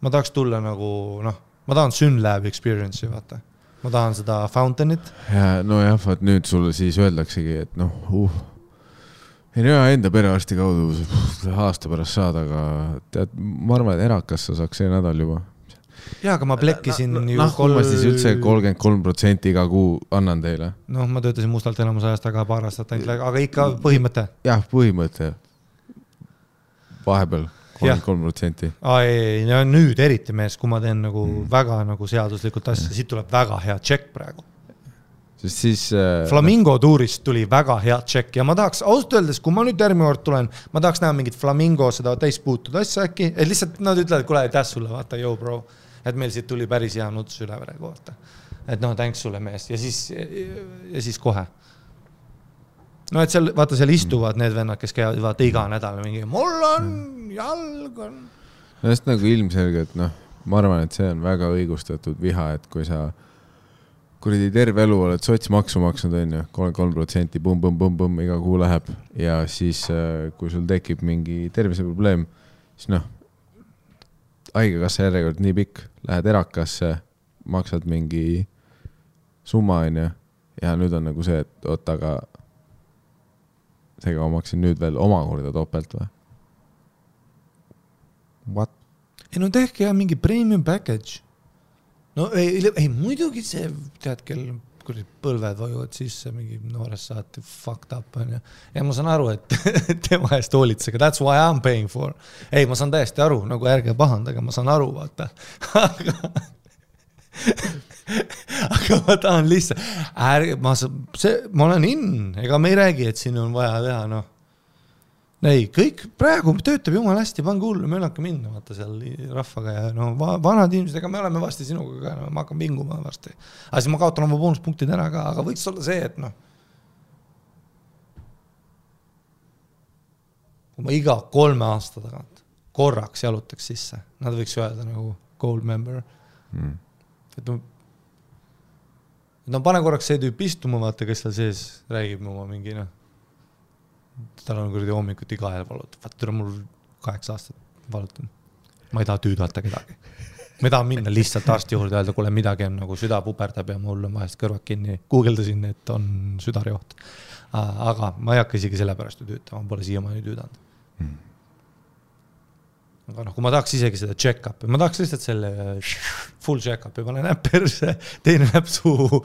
ma tahaks tulla nagu, ma tahan Synlab experience'i, vaata. Ma tahan seda fountainit. Ja no jah, vaat nüüd sulle siis öeldaksegi, et ei no enda perearsti kaudu aasta pärast saada, aga tead, ma arvan, et erakas sa saaks see nädal juba. Jaa, aga ma plekkisin ju ma siis üldse 33% iga kuu annan teile. Ma töötasin mustalt enamus ajast, aga paar aastat ainult, aga ikka põhimõte. Jah, põhimõte. Vahepeal 33%. Ei, nüüd eriti mees, kui ma teen nagu väga nagu seaduslikult asja, siit tuleb väga hea tšekk praegu. Sest siis... Flamingo tuurist tuli väga hea tšekk ja ma tahaks, ausalt öeldes, kui ma nüüd järgmine kord tulen, ma tahaks näha mingit Flamingo seda täispuutud asja äkki, et lihtsalt nad ütlevad, kuule, täs sulle, vaata, yo bro, et meil siit tuli päris hea nuts üle praegu, vaata. Et thanks sulle mees ja siis kohe. No et seal, vaata, seal istuvad need vennad, kes käivad vaata iga nädal mingi, mul on jalg on. No sest nagu ilmselgelt, ma arvan, et see on väga õigustatud viha, et kui sa kuridi terve elu oled sotsmaksu maksnud, on ju, 33%, bum, iga kuu läheb ja siis, kui sul tekib mingi terviseprobleem, siis haigekassa järjekord nii pikk, lähed erakasse, maksad mingi summa, on ju, ja nüüd on nagu see, et oot, aga seega ma maksin nüüd veel omakorda topelt või? What? Ei, tehke ja mingi premium package. No ei muidugi see, tead, kel põlved vajuvad sisse, mingi noorest saati fucked up on ja. Ja ma saan aru, et tema eest hoolitsega, that's why I'm paying for. Ei, ma saan täiesti aru, nagu ärge pahandage, ma saan aru, vaata. Aga ma tahan lihtsalt, ma olen ega me ei räägi, et siin on vaja teha, Ei, kõik praegu töötab jumal hästi, pange hullu, me hakka minna, vaata seal rahvaga ja vanad inimesed, ega me oleme vasti sinuga, ma hakkan pinguma varsti. Aga siis ma kaotan oma boonuspunktid ära ka, aga võiks olla see, et kui ma iga 3 aasta tagant korraks jalutaks sisse, nad võiks öelda nagu gold member. Et pane korraks see tüüp istuma, vaata, kes seal sees räägib oma mingi, tal on kuradi hommikuti kahel valutab. Vaata, mul 8 aastat valutan. Ma ei taha tüüdata kedagi. Ma ei taha minna lihtsalt arsti juurde öelda, kuule midagi on nagu süda puperdab ja mul on vahest kõrvad kinni. Googledasin, et on südarjoht. Aga ma ei hakka isegi selle pärast tüütama, ma pole siiamaani tüüdanud. Aga kui ma tahaks isegi seda check-upi, ma tahaks lihtsalt selle full check-upi, ma olen näpperse, teine näpp suu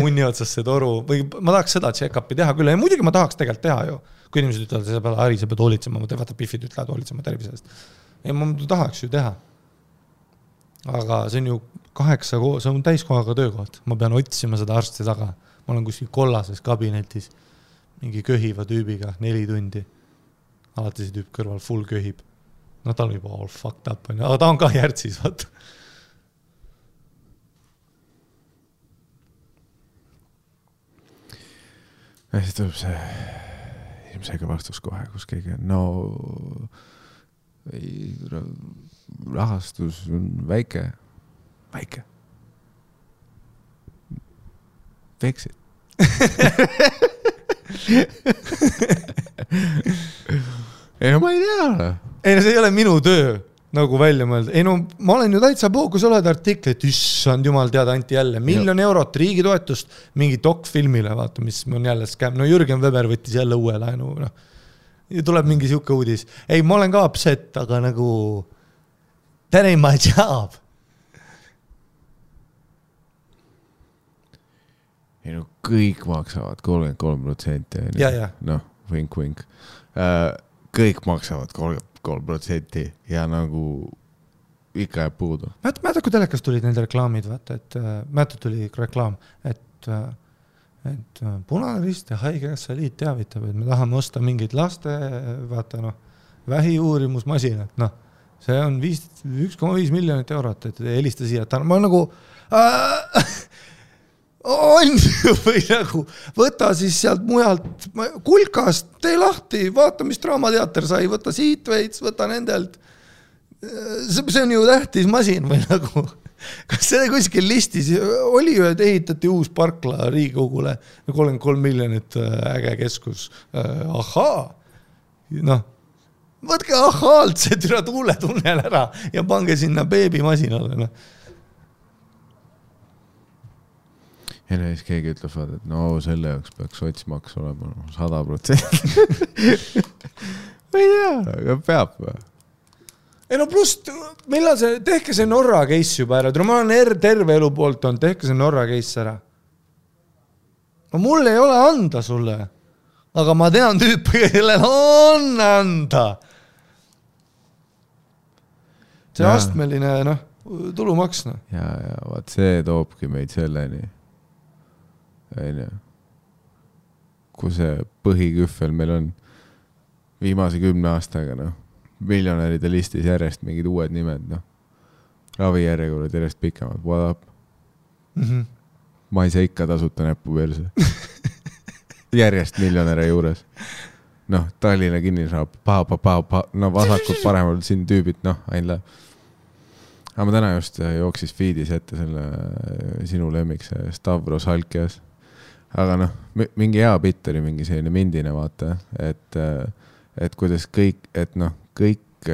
munni otsasse toru, või ma tahaks seda check-upi teha küll, ja muidugi ma tahaks tegelikult teha ju, kui inimesed ütlevad, sa pead Ari, sa pead hoolitsema, ma vaata pifid ütlevad hoolitsema tervisest. Ja ma tahaks ju teha. Aga see on ju 8, see on täiskohaga töökoht, ma pean otsima seda arsti taga, ma olen kuskil kollases kabinetis, mingi köhiva tüübiga 4 tundi, alati see tüüp kõrval full köhib. Ta on juba all fucked up, aga ta on ka järtsis, vaata. Ja siis tuleb see ilmselge vastus kohe, kus keegi on, rahastus on väike. Fix it. Ei, ma ei tea. Ei, see ei ole minu töö nagu välja mõelda. Ei, ma olen ju täitsa kui sa oled artiklit, issand jumal teada anti jälle $1 000 000 riigi toetust mingi dokfilmile, vaata, mis on jälle scam. Jürgen Weber võttis jälle uue laenu. Ja tuleb mingi siuke uudis. Ei, ma olen ka upset, aga nagu that ain't my job. ei no kõik maksavad 33%. Ja. Noh, vink. Kõik maksavad 33% ja nagu ikka jääb puudu. Mäletad, kui telekas tulid need reklaamid, vaata, et mäletad tuli reklaam, et Punane Rist ja Haigekassa Liit teavitab, et me tahame osta mingeid laste, vaata vähiuurimusmasinat, see on 1,5 miljonit eurot, et helista siia, et ma nagu on või nagu võta siis sealt mujalt kulkast, tee lahti, vaata, mis Draamateater sai, võta siit veits, võta nendelt. See on ju tähtis masin või nagu, kas see kuskil listis oli ju, et ehitati uus parkla Riigikogule 33 miljonit äge keskus. Ahaa, võtke ahaalt see türa tuuletunnel ära ja pange sinna beebimasinale. Ja siis keegi ütleb, et no selle jaoks peaks sotsmaks olema 100%. Või tea, aga peab või? Ei no pluss, millal see, tehke see Norra case juba ära. Ma olen terve elu poolt on, tehke see Norra case ära. No mul ei ole anda sulle, aga ma tean tüüpi, kellel on anda. See astmeline tulumaks. Ja vaat see toobki meid selleni. Kui see põhiküffel meil on viimase 10 aastaga miljonäride listis järjest mingid uued nimed, ravijärjekorrad järjest pikemad, what up? Ma ei saa ikka tasuta näppu perse. Järjest miljonäre juures. Tallinna kinnisraab, vasakult paremal siin tüübid, ain läheb. Aga ma täna just jooksis feedis ette selle sinu lemmik, see Stavros Halkias. Aga mingi hea bitt oli mingi selline mindine vaata, et kuidas kõik, kõik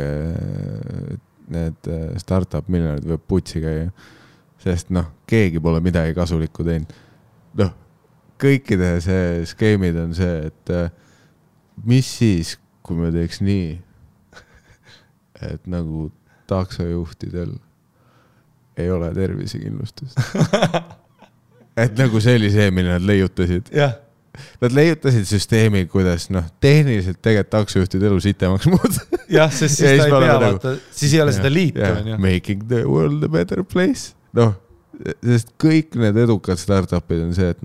need startup miljonid võib putsi käia, sest keegi pole midagi kasulikku teinud. Kõikide see skeemid on see, et mis siis, kui me teeks nii, et nagu taksojuhtidel ei ole tervisekindlustust. Et nagu see oli see, mille nad leiutasid. Jah. Nad leiutasid süsteemi, kuidas tehniliselt tegelikult taksojuhtid elu sitemaks muud. Jah, sest siis ta ei pea vaata, siis ei ole seda liitu. Making the world a better place. Sest kõik need edukad startupid on see, et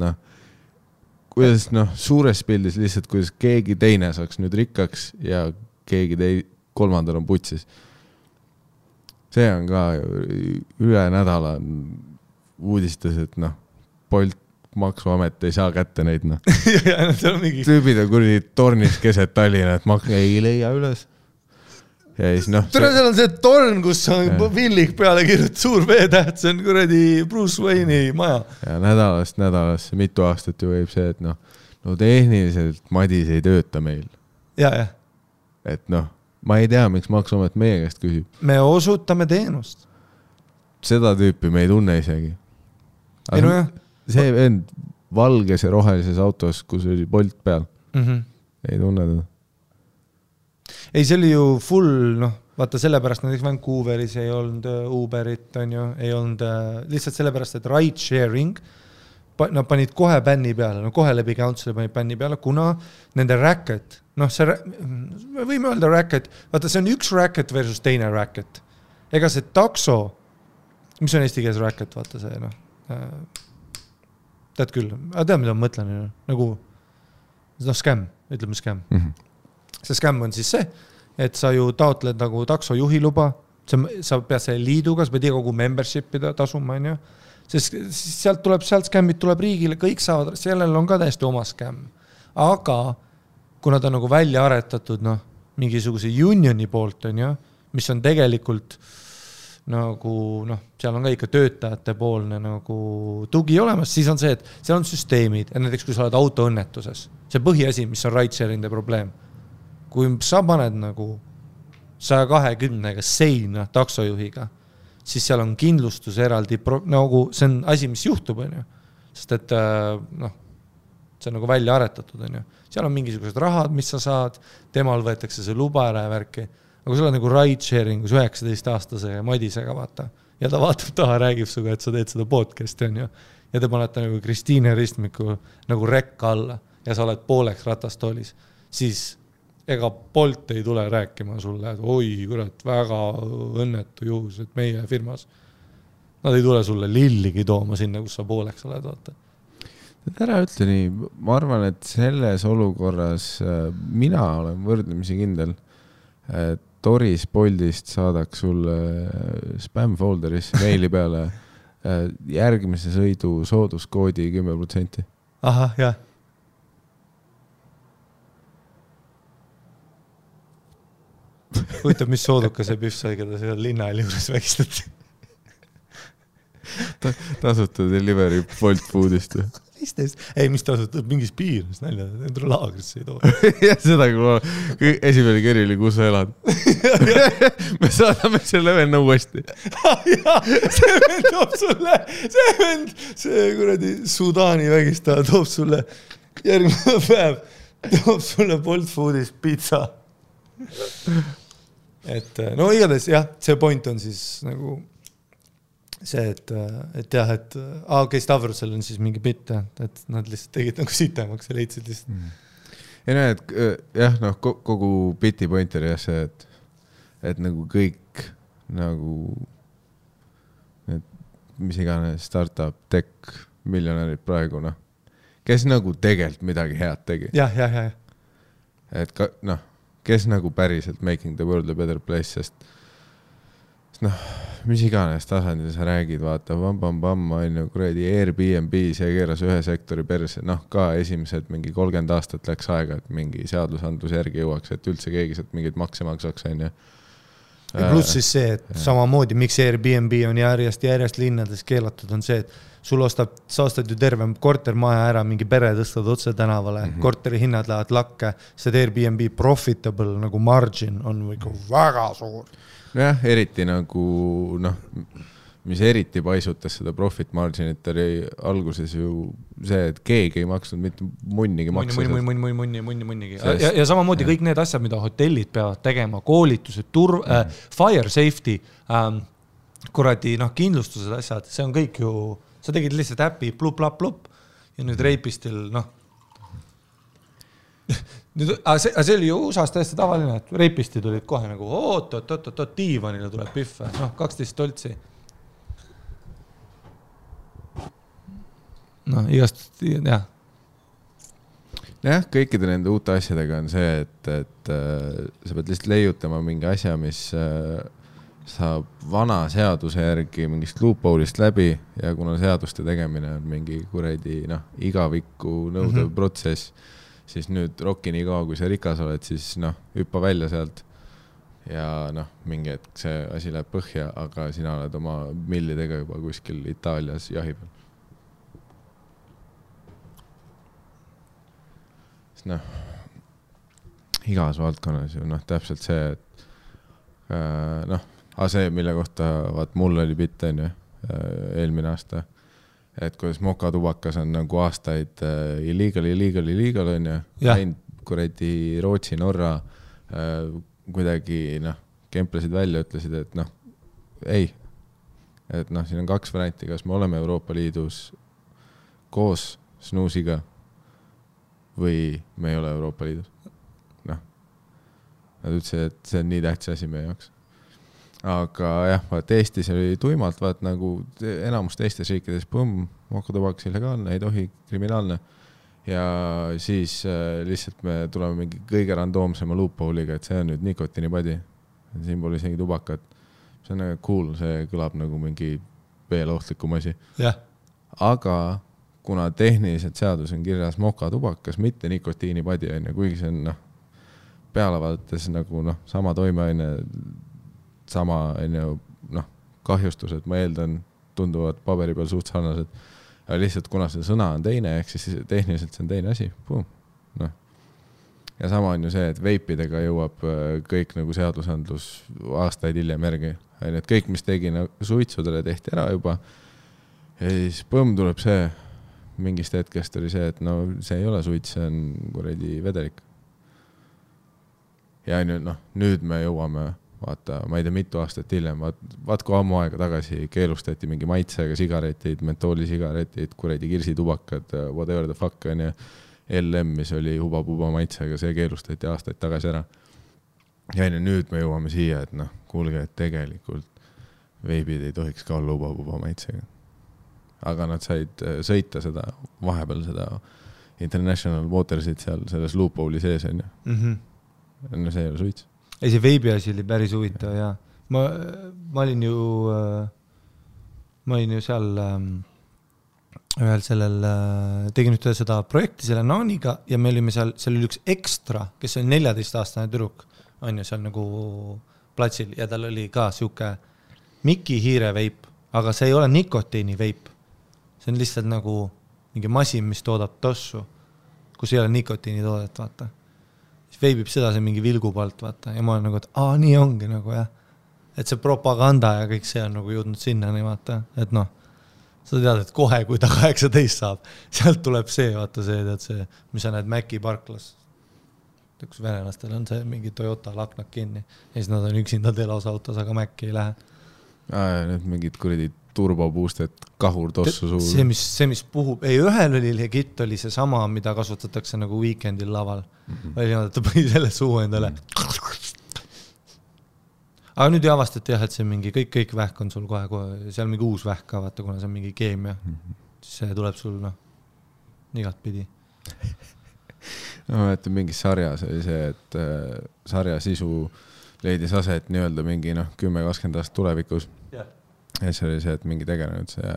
kuidas suures pildis lihtsalt, kuidas keegi teine saaks nüüd rikkaks ja keegi kolmandal on putsis. See on ka üle nädala uudistas, et Bolt maksuamet ei saa kätte neid. Tüübid on kuradi tornis keset Tallinna, et ei leia üles. Ja siis Tere, seal on see torn, kus on Villik peale kirjut suur veetäht, see on kuradi Bruce Wayne'i maja. Ja nädalasse mitu aastat ju võib see, et tehniliselt Madis ei tööta meil. Ja. Et ma ei tea, miks maksuamet meie käest küsib. Me osutame teenust. Seda tüüpi me ei tunne isegi. Ei no jah. See vend valges ja rohelises autos, kus oli Bolt peal. Ei tunne teda. Ei, see oli ju full, vaata sellepärast näiteks Vancouveris ei olnud Uberit, ei olnud lihtsalt sellepärast, et ride sharing, nad panid kohe bänni peale, kohe läbi council'i panid bänni peale, kuna nende racket, me võime öelda racket, vaata see on üks racket versus teine racket. Ega see takso, mis on eesti keeles racket, vaata see, tead küll, aga tead, mida ma mõtlen, nagu scam, ütleme scam. See scam on siis see, et sa ju taotled nagu taksojuhi luba, sa pead selle liiduga, sa pead kogu membership'i tasuma, sest sealt scammid tuleb riigile, kõik saavad, sellel on ka täiesti oma scam. Aga kuna ta on nagu välja aretatud mingisuguse unioni poolt, mis on tegelikult nagu, seal on ka ikka töötajate poolne nagu tugi olemas, siis on see, et seal on süsteemid, ja näiteks kui sa oled autoõnnetuses, see põhiasi, mis on ride-sharing'de probleem. Kui sa paned nagu 120-ga seina taksojuhiga, siis seal on kindlustus eraldi, nagu see on asi, mis juhtub, sest et see on nagu välja aretatud, seal on mingisugused rahad, mis sa saad, temal võetakse see luba ära ja värki. Aga kui sa oled nagu ride-sharingus 19-aastase Madisega, vaata, ja ta vaatab taha, räägib suga, et sa teed seda podcasti, ja te panete nagu Kristiine ristmiku nagu rekka alla ja sa oled pooleks ratastoolis, siis ega Bolt ei tule rääkima sulle, et oi, kurat, väga õnnetu juhus, et meie firmas. Nad ei tule sulle lilligi tooma sinna, kus sa pooleks oled, vaata. Ära ütle nii, ma arvan, et selles olukorras mina olen võrdlemisi kindel, et Toris Boltist saadaks sulle spam folderis meili peale järgmise sõidu sooduskoodi 10%. Ahah, jah. Huvitav, mis sooduka see pühv sai, keda seal linnaäli juures vägistati. Tasuta delivery Bolt Foodist. Ei, mis tasutab mingis piirnes nalja, endru laagrisse ei too. Ja seda, kui esimene kerili, kus sa elad. Me saadame selle venna uuesti. See vend toob sulle, see kuradi Sudaani vägistaja toob sulle järgmine päev, toob sulle Bolt Foodist pizza. Et no igatahes jah, see point on siis nagu see, et jah, et okei, Stavrosel on siis mingi bitt, et nad lihtsalt tegid nagu sitemaks ja leidsid lihtsalt. Ja näe, et jah, noh, kogu biti point oli jah see, et nagu kõik nagu mis iganes startup, tech, miljonärid praegu, noh, kes nagu tegelikult midagi head tegi. Jah. Et ka, noh, kes nagu päriselt making the world a better place, sest noh, mis iganes tasandil sa räägid, vaata, on ju, kuradi Airbnb, see keeras ühe sektori perse, noh, ka esimesed mingi 30 aastat läks aega, et mingi seadusandlus järgi jõuaks, et üldse keegi sealt mingeid makse maksaks, on ju. Ja pluss siis see, et samamoodi, miks Airbnb on järjest linnades keelatud, on see, et sul sa ostad ju terve kortermaja ära, mingi pere tõstad otse tänavale, korteri hinnad lähevad lakke, see Airbnb profitable nagu margin on väga suur. Jah, eriti nagu, noh, mis eriti paisutas seda profit marginit oli alguses ju see, et keegi ei maksnud mitte munnigi makse. Munnigi. Ja samamoodi kõik need asjad, mida hotellid peavad tegema, koolitused, fire safety, kuradi, noh, kindlustused asjad, see on kõik ju, sa tegid lihtsalt äpi plup ja nüüd Reipistil, noh, see oli ju USA-s täiesti tavaline, et Reipisti tulid kohe nagu oot, diivanile tuleb pühve, noh, 12 toltsi. Noh, igast, jah. Jah, kõikide nende uute asjadega on see, et sa pead lihtsalt leiutama mingi asja, mis saab vana seaduse järgi mingist loophole'ist läbi ja kuna seaduste tegemine on mingi kuredi, noh, igavikku nõudev protsess, siis nüüd rokki nii kaua, kui sa rikas oled, siis noh, hüppa välja sealt ja noh, mingi hetk see asi läheb põhja, aga sina oled oma millidega juba kuskil Itaalias jahi peal. Sest noh, igas valdkonnas ju noh, täpselt see, et noh, see, mille kohta vaat mul oli bitt, on ju, eelmine aasta, et kuidas mokatubakas on nagu aastaid illegal, on ju, läinud kuradi Rootsi, Norra kuidagi, noh, kemplesid välja, ütlesid, et noh, ei, et noh, siin on 2 varianti, kas me oleme Euroopa Liidus koos snuusiga või me ei ole Euroopa Liidus. Noh, nad ütlesid, et see on nii tähtis asi meie jaoks. Aga jah, vaat Eestis oli tuimalt, vaat nagu enamus teistes riikides, mokatubakas illegaalne, ei tohi, kriminaalne. Ja siis lihtsalt me tuleme mingi kõige randoomsema loophole'iga, et see on nüüd nikotiinipadi. Siin pole isegi tubakat. See on nagu cool, see kõlab nagu mingi veel ohtlikum asi. Yeah. Aga kuna tehniliselt seadus on kirjas mokatubakas, mitte nikotiinipadi, kuigi see on noh, peale vaadates nagu noh, sama toimeaine, sama noh, kahjustused, ma eeldan, tunduvad paberi peal suht sarnased. Aga lihtsalt kuna see sõna on teine, ehk siis tehniliselt see on teine asi. No. Ja sama on ju see, et veipidega jõuab kõik nagu seadusandlus aastaid hiljem järgi. Et kõik, mis tegi suitsudele, tehti ära juba. Ja siis tuleb see, mingist hetkest oli see, et no see ei ole suits, see on kuradi vedelik. Ja nüüd me jõuame vaata, ma ei tea, mitu aastat hiljem, vaat kui ammu aega tagasi keelustati mingi maitsega sigaretid, mentoolisigaretid, kuredi kirsitubakad, whatever the fuck on ja LM, mis oli huba-puba maitsega, see keelustati aastaid tagasi ära. Ja nüüd me jõuame siia, et noh, kuulge, et tegelikult veibid ei tohiks ka olla huba-puba maitsega. Aga nad said sõita seda, vahepeal seda International Watersit seal selles loophole'i sees on ju. No see ei ole suits. Ei, see veibi asi oli päris huvitav ja ma olin ju seal ühel sellel, tegin ühte seda projekti selle Naaniga ja me olime seal oli üks ekstra, kes oli 14-aastane tüdruk, on ju seal nagu platsil ja tal oli ka siuke Miki hiire veip, aga see ei ole nikotiini veip. See on lihtsalt nagu mingi masin, mis toodab tossu, kus ei ole nikotiini toodet, vaata. Siis veibib seda see mingi vilgupalt, vaata. Ja ma olen nagu, et nii ongi nagu, jah. Et see propaganda ja kõik see on nagu jõudnud sinna, nii vaata. Et noh, sa tead, et kohe, kui ta 18 saab, sealt tuleb see, vaata see, tead see, mis sa näed Mäki parklas. Kus venelastel on see mingi Toyota laknak kinni. Ja siis nad on üksinda telos autos, aga Mäki ei lähe. Need mingid kuridi turboboosted, kahur tossu suur. See, mis puhub, ei ühel oli legit, oli see sama, mida kasutatakse nagu weekendil laval. Oli niimoodi, et ta põi selle suu endale. Aga nüüd ei avastati jah, et see mingi, kõik vähk on sul kohe, seal mingi uus vähk ka, vaata, kuna see on mingi keemia. Siis see tuleb sul, igat pidi. Ma mäletan mingis sarjas oli see, et sarja sisu leidis aset nii-öelda mingi 10-20 aastat tulevikus. Ja see oli see, et mingi tegelenud see,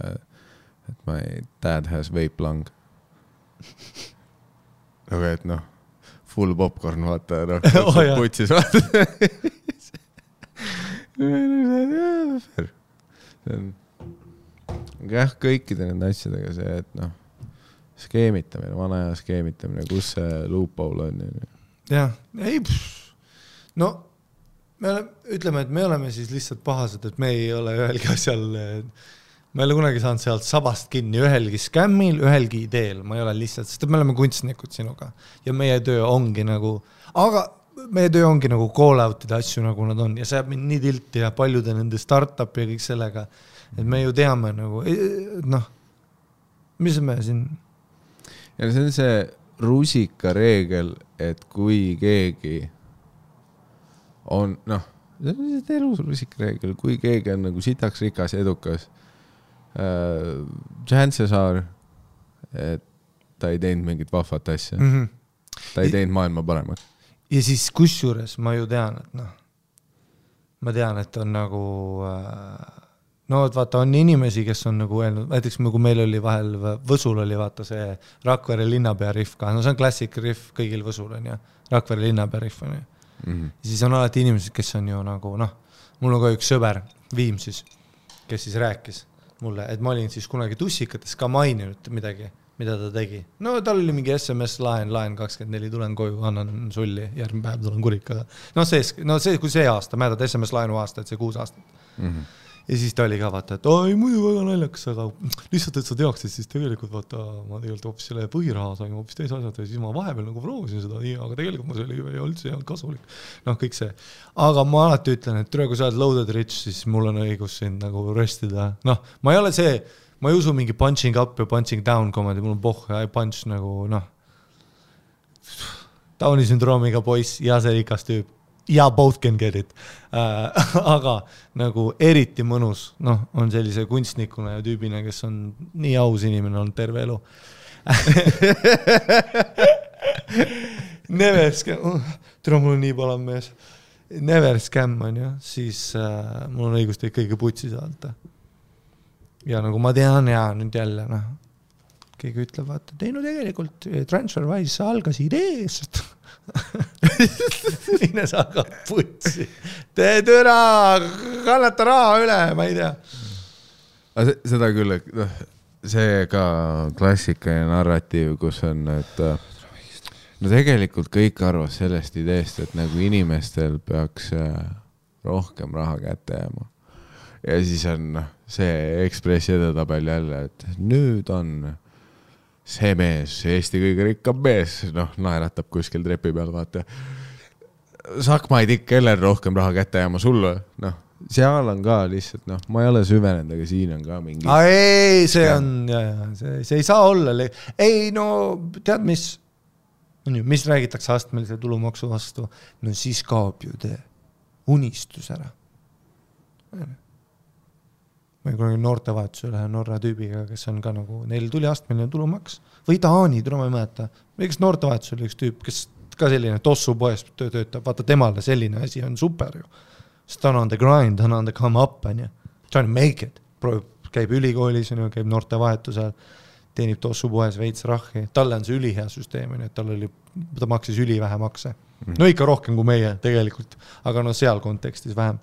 et my dad has vape lung. Aga et full popcorn, vaata, putsis, vaata. See on jah, kõikide nende asjadega see, et skeemitamine, vana aja skeemitamine, kus see loophole on. Jah, ei, ütleme, et me oleme siis lihtsalt pahased, et me ei ole ühelgi asjal, ma ei ole kunagi saanud sealt sabast kinni ühelgi skämmil, ühelgi ideel, ma ei ole lihtsalt, sest me oleme kunstnikud sinuga ja meie töö ongi nagu, aga meie töö ongi nagu call-out'ide asju, nagu nad on ja see jääb mind nii tilti ja paljude nende start-up ja kõik sellega, et me ju teame nagu, mis me siin? Ja see on see rusika reegel, et kui keegi on, see on lihtsalt elus rusikareegel, kui keegi on nagu sitaks rikas ja edukas, chances are, et ta ei teinud mingit vahvat asja. Ta ei teinud maailma paremaks. Ja siis kusjuures ma ju tean, et ma tean, et on nagu, vaata, on inimesi, kes on nagu öelnud, näiteks kui meil oli vahel, Võsul oli vaata see Rakvere linnapea riff ka, see on klassik riff kõigil Võsul on ja Rakvere linnapea riff on ja siis on alati inimesed, kes on ju nagu, mul on ka üks sõber, Viim siis, kes siis rääkis mulle, et ma olin siis kunagi tussikates ka maininud midagi, mida ta tegi. Tal oli mingi SMS laen 24, tulen koju, annan sulli, järgmine päev tulen kurikaga. Kui see aasta, mäletad SMS laenu aasta, et see 6 aastat. Ja siis ta oli ka vaata, et muidu väga naljakas, aga lihtsalt, et sa teaksid, siis tegelikult vaata, ma tegelikult hoopis selle põhiraha sain hoopis teise asjad ja siis ma vahepeal nagu proovisin seda, aga tegelikult ma see oli üldse hea kasulik. Kõik see. Aga ma alati ütlen, et kui sa oled loaded rich, siis mul on õigus sind nagu röstida. Ma ei ole see, ma ei usu mingi punching up ja punching down komedi, mul on I punch nagu, Downi sündroomiga poiss ja see rikas tüüp. Ja both can get it. Aga nagu eriti mõnus, on sellise kunstnikuna ja tüübina, kes on nii aus inimene on terve elu. Never scam, tere mul on nii palav mees. Never scam on ju, siis mul on õigus teid kõige putsi saada. Ja nagu ma tean ja nüüd jälle, keegi ütleb, vaata, tegelikult TransferWise algas ideest. Mine saga putsi. Tee türa, kannata raha üle, ma ei tea. Seda küll, see ka klassika ja narratiiv, kus on, et tegelikult kõik arvas sellest ideest, et nagu inimestel peaks rohkem raha kätte jääma. Ja siis on see Ekspressi edetabel jälle, et nüüd on see mees, Eesti kõige rikkam mees, naeratab kuskil trepi peal, vaata. Sakmaid ikka kellel rohkem raha kätte jääma sulle, noh, seal on ka lihtsalt, noh, ma ei ole süvenenud, aga siin on ka mingi... Ei, see on, see ei saa olla, ei no tead, mis räägitakse astmelise tulumaksu vastu, no siis kaob ju tee unistus ära. Ma kunagi noortevahetusel ühe Norra tüübiga, kes on ka nagu, neil tuli astmeline tulumaks või Taani, ma ei mäleta. Või kes noortevahetusel üks tüüp, kes ka selline tossu poes töötab, vaata temale selline asi on super ju. Sest ta on on the grind, ta on the come up, trying to make it. Käib ülikoolis, käib noortevahetusel, teenib tossu poes veits rahhi. Talle on see ülihea süsteem, et ta maksis ülivähe makse. No ikka rohkem kui meie tegelikult, aga no seal kontekstis vähem.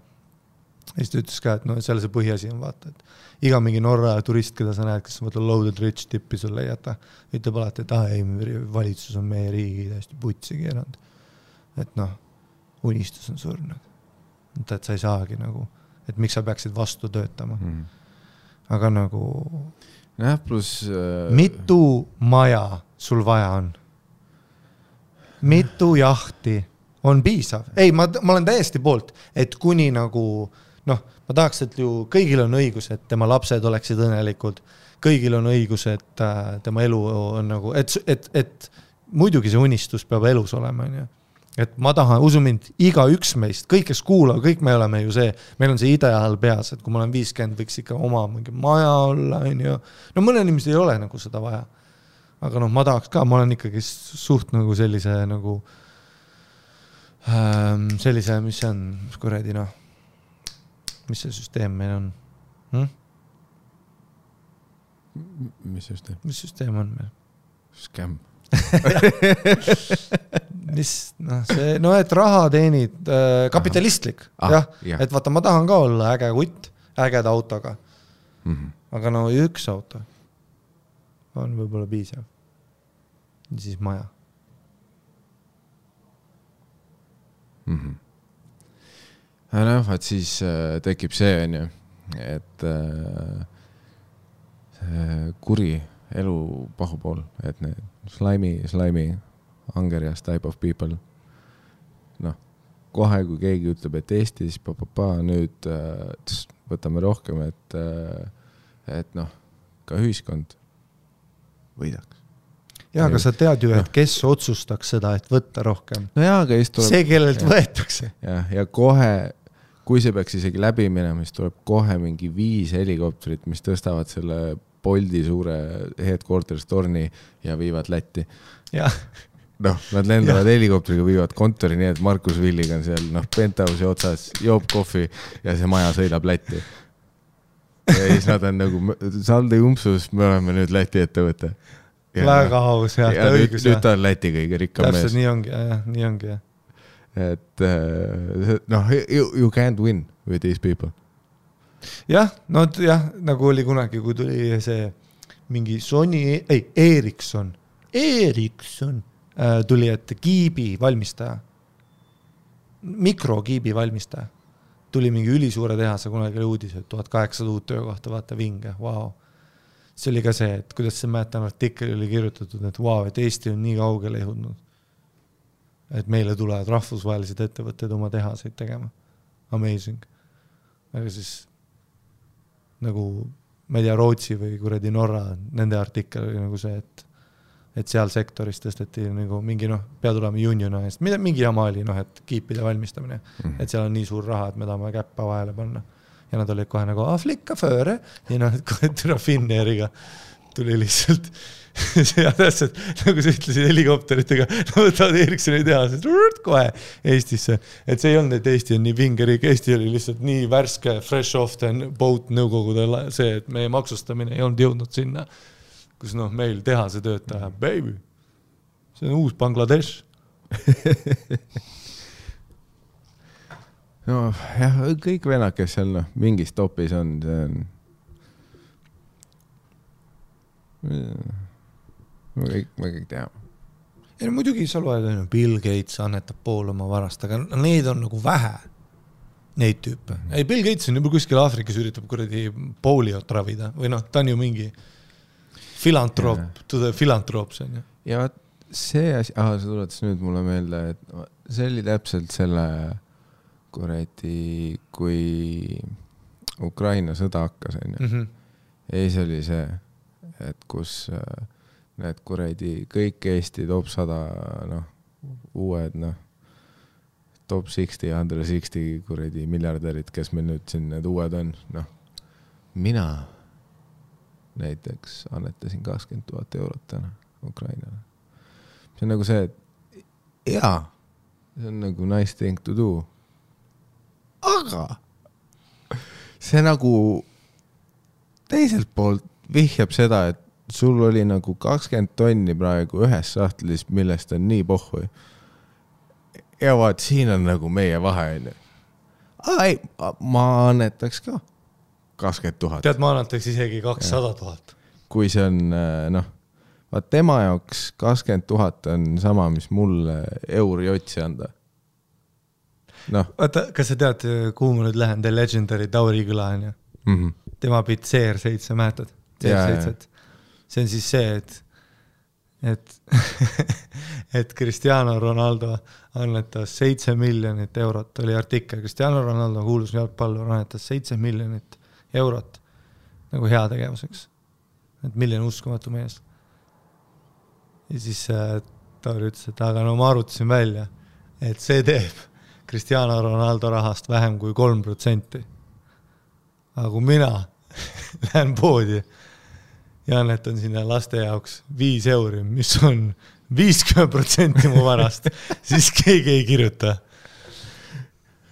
Ja siis ta ütles ka, et no seal see põhiasi on vaata, et iga mingi Norra turist, keda sa näed, kes on loaded rich tippi sulle jäta, ütleb alati, et ei, valitsus on meie riigi täiesti putsi keeranud. Et noh, unistus on surnud. Et sa ei saagi nagu, et miks sa peaksid vastu töötama. Aga nagu... Plus... Mitu maja sul vaja on? Mitu jahti on piisav? Ei, ma olen täiesti poolt, et kuni nagu... Noh, ma tahaks, et ju kõigil on õigus, et tema lapsed oleksid õnnelikud. Kõigil on õigus, et tema elu on nagu... Et muidugi see unistus peab elus olema. Et ma tahan, usu mind, iga üks meist, kõik kes kuulab, kõik me oleme ju see, meil on see ideaal peas, et kui ma olen 50, võiks ikka oma mingi maja olla. No mõne inimesed ei ole nagu seda vaja. Aga noh, ma tahaks ka, ma olen ikkagi suht nagu sellise nagu... sellise, mis see on, kuredi noh... Mis see süsteem meil on? Mis süsteem? Mis süsteem on meil? Scam. Et raha teenid kapitalistlik. Jah. Et vaata, ma tahan ka olla äge kutt, ägeda autoga. Aga no üks auto on võib-olla piisav. Ja siis maja. Et siis tekib see, on ju, et kuri elu pahupool, et need slimy, angerias type of people. Noh, kohe kui keegi ütleb, et Eestis, nüüd võtame rohkem, et noh, ka ühiskond võidaks. Jaa, aga sa tead ju, et kes otsustaks seda, et võtta rohkem. No jaa, aga tuleb... See, kellelt võetakse. Ja kohe, kui see peaks isegi läbi minema, siis tuleb kohe mingi 5 helikopterit, mis tõstavad selle Boldi suure headquarters torni ja viivad Lätti. Ja. Noh, nad lendavad helikopteriga, viivad kontori nii, et Markus Villiga on seal, penthouse'i otsas, joob kohvi ja see maja sõidab Lätti. Ja siis nad on nagu, saldi umpsus, me oleme nüüd Läti ettevõte. Väga aus, jah, ta õigus. Nüüd ta on Läti kõige rikkam mees. Täpselt nii ongi, jah. Et noh, you can't win with these people. Jah, nagu oli kunagi, kui tuli see mingi Sony, Ericsson tuli, et kiibi valmistaja, mikrokiibi valmistaja, tuli mingi ülisuure tehase, kunagi oli uudis, et 1800 uut töökohta, vaata vinge, wow. See oli ka see, et kuidas see mäletan artikkel oli kirjutatud, et wow, et Eesti on nii kaugele jõudnud. Et meile tulevad rahvusvahelised ettevõtted oma tehaseid tegema. Amazing. Aga siis nagu, ma ei tea, Rootsi või kuradi Norra, nende artikkel oli nagu see, et seal sektoris tõsteti nagu mingi, peab tulema uniona eest. Mingi jama oli, et kiipide valmistamine. Et seal on nii suur raha, et me tahame käppa vahele panna. Ja nad olid kohe nagu, flikka fööre. Ja kohe türa Finnairiga tuli lihtsalt ja täpselt, nagu sa ütlesid helikopteritega, võtavad Ericssoni tehasest kohe Eestisse. Et see ei olnud, et Eesti on nii vingerik, Eesti oli lihtsalt nii värske, fresh off the boat nõukogude see, et meie maksustamine ei olnud jõudnud sinna, kus meil tehase töötaja, baby, see on uus Bangladesh. No jah, kõik venad, kes seal mingis topis on, see on me kõik teame. Ja muidugi sa loed, Bill Gates annetab pool oma varast, aga need on nagu vähe, neid tüüpe. Ei, Bill Gates on juba kuskil Aafrikas üritab kuradi poliot ravida, või ta on ju mingi filantroop, to the philanthropes on ju. Ja see asi, sa tuletas nüüd mulle meelde, et see oli täpselt selle kuradi, kui Ukraina sõda hakkas, onju. Ja siis oli see, et kus need kuradi kõik Eesti top 100, uued, top 60, 160 kuradi miljardärid, kes meil nüüd siin need uued on, mina näiteks annetasin 20 000 eurot täna Ukrainale. See on nagu see, et jaa, see on nagu nice thing to do. Aga see nagu teiselt poolt vihjab seda, et sul oli nagu 20 tonni praegu ühes sahtlis, millest on nii pohhui. Ja vaat, siin on nagu meie vahe. Ei, ma annetaks ka 20 000. Tead, ma annetaks isegi 200 000. Kui see on, vaat tema jaoks 20 000 on sama, mis mulle euri otsi anda. Vaata, kas sa tead, kuhu ma nüüd lähen? The Legendary Tauri küla on ju. Tema pid CR7 mäetad. CR7. See on siis see, et Cristiano Ronaldo annetas 7 miljonit eurot. Oli artikkel. Cristiano Ronaldo kuulus jalgpallur annetas 7 miljonit eurot nagu hea tegevuseks. Et milline uskumatu mees. Ja siis Tauri ütles, et aga ma arvutasin välja, et see teeb Cristiano Ronaldo rahast vähem kui 3%. Aga kui mina lähen poodi ja annetan sinna laste jaoks 5 euri, mis on 50% mu varast, siis keegi ei kirjuta.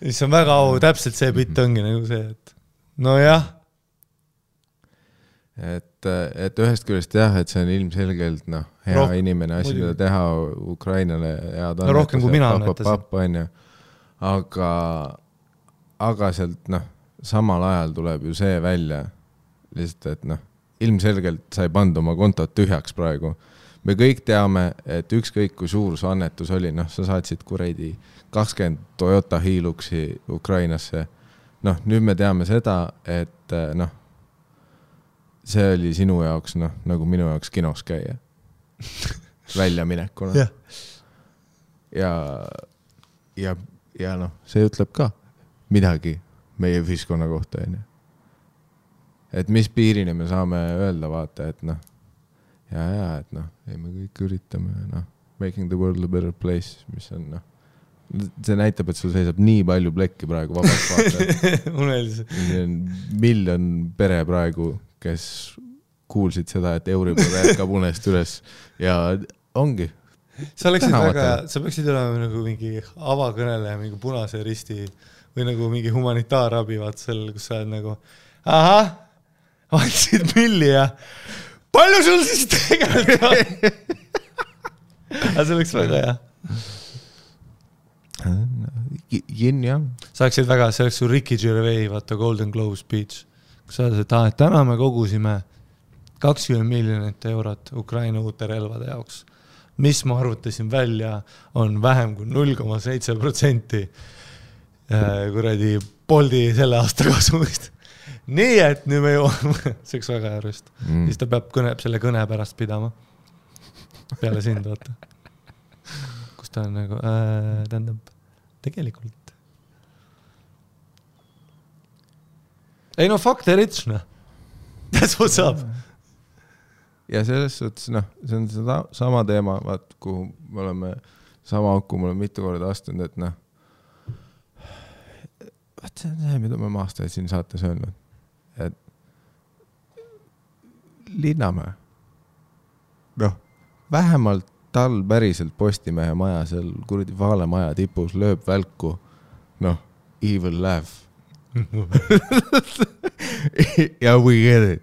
Siis on väga täpselt see bitt ongi nagu see, et jah. Et ühest küljest jah, et see on ilmselgelt hea inimene asi, mida teha Ukrainale head annetus. Rohkem kui mina annetasin. Aga sealt samal ajal tuleb ju see välja lihtsalt, et ilmselgelt sa ei pannud oma kontot tühjaks praegu. Me kõik teame, et ükskõik kui suur su annetus oli, sa saatsid kuradi 20 Toyota Hiluxi Ukrainasse. Nüüd me teame seda, et see oli sinu jaoks, nagu minu jaoks kinos käia. Väljaminekuna. Ja see ütleb ka midagi meie ühiskonna kohta. Et mis piirini me saame öelda vaata, et et me kõik üritame making the world a better place, mis on see näitab, et sul seisab nii palju plekki praegu vabalt vaata. See on miljon pere praegu, kes kuulsid seda, et Euribor jätkab unest üles ja ongi. Sa peaksid olema nagu mingi avakõneleja, mingi Punase Risti või nagu mingi humanitaarabi vaat seal, kus sa oled nagu andsid milli ja palju sul siis tegelikult on? Aga see oleks väga hea. Sa oleksid väga, see oleks su Ricky Gervais, vaata Golden Globe speech. Kus sa oled, et täna me kogusime 20 miljonit eurot Ukraina uute relvade jaoks. Mis ma arvutasin välja, on vähem kui 0,7% kuradi Boldi selle aasta kasumist. Nii, et nüüd me jõuame, see oleks väga järjest. Siis ta peab selle kõne pärast pidama. Peale sind, vaata. Kus ta on nagu, tähendab, tegelikult. Ei fuck the rich, That's what's up. Ja selles suhtes, see on seda sama teema, vaat, kuhu me oleme sama auku, me oleme mitu korda astunud, et vaat see on see, mida me aastaid siin saates öelnud, et Linnamäe, vähemalt tal päriselt Postimehe maja seal kuradi Vaale maja tipus lööb välku, evil laugh. Ja we get it.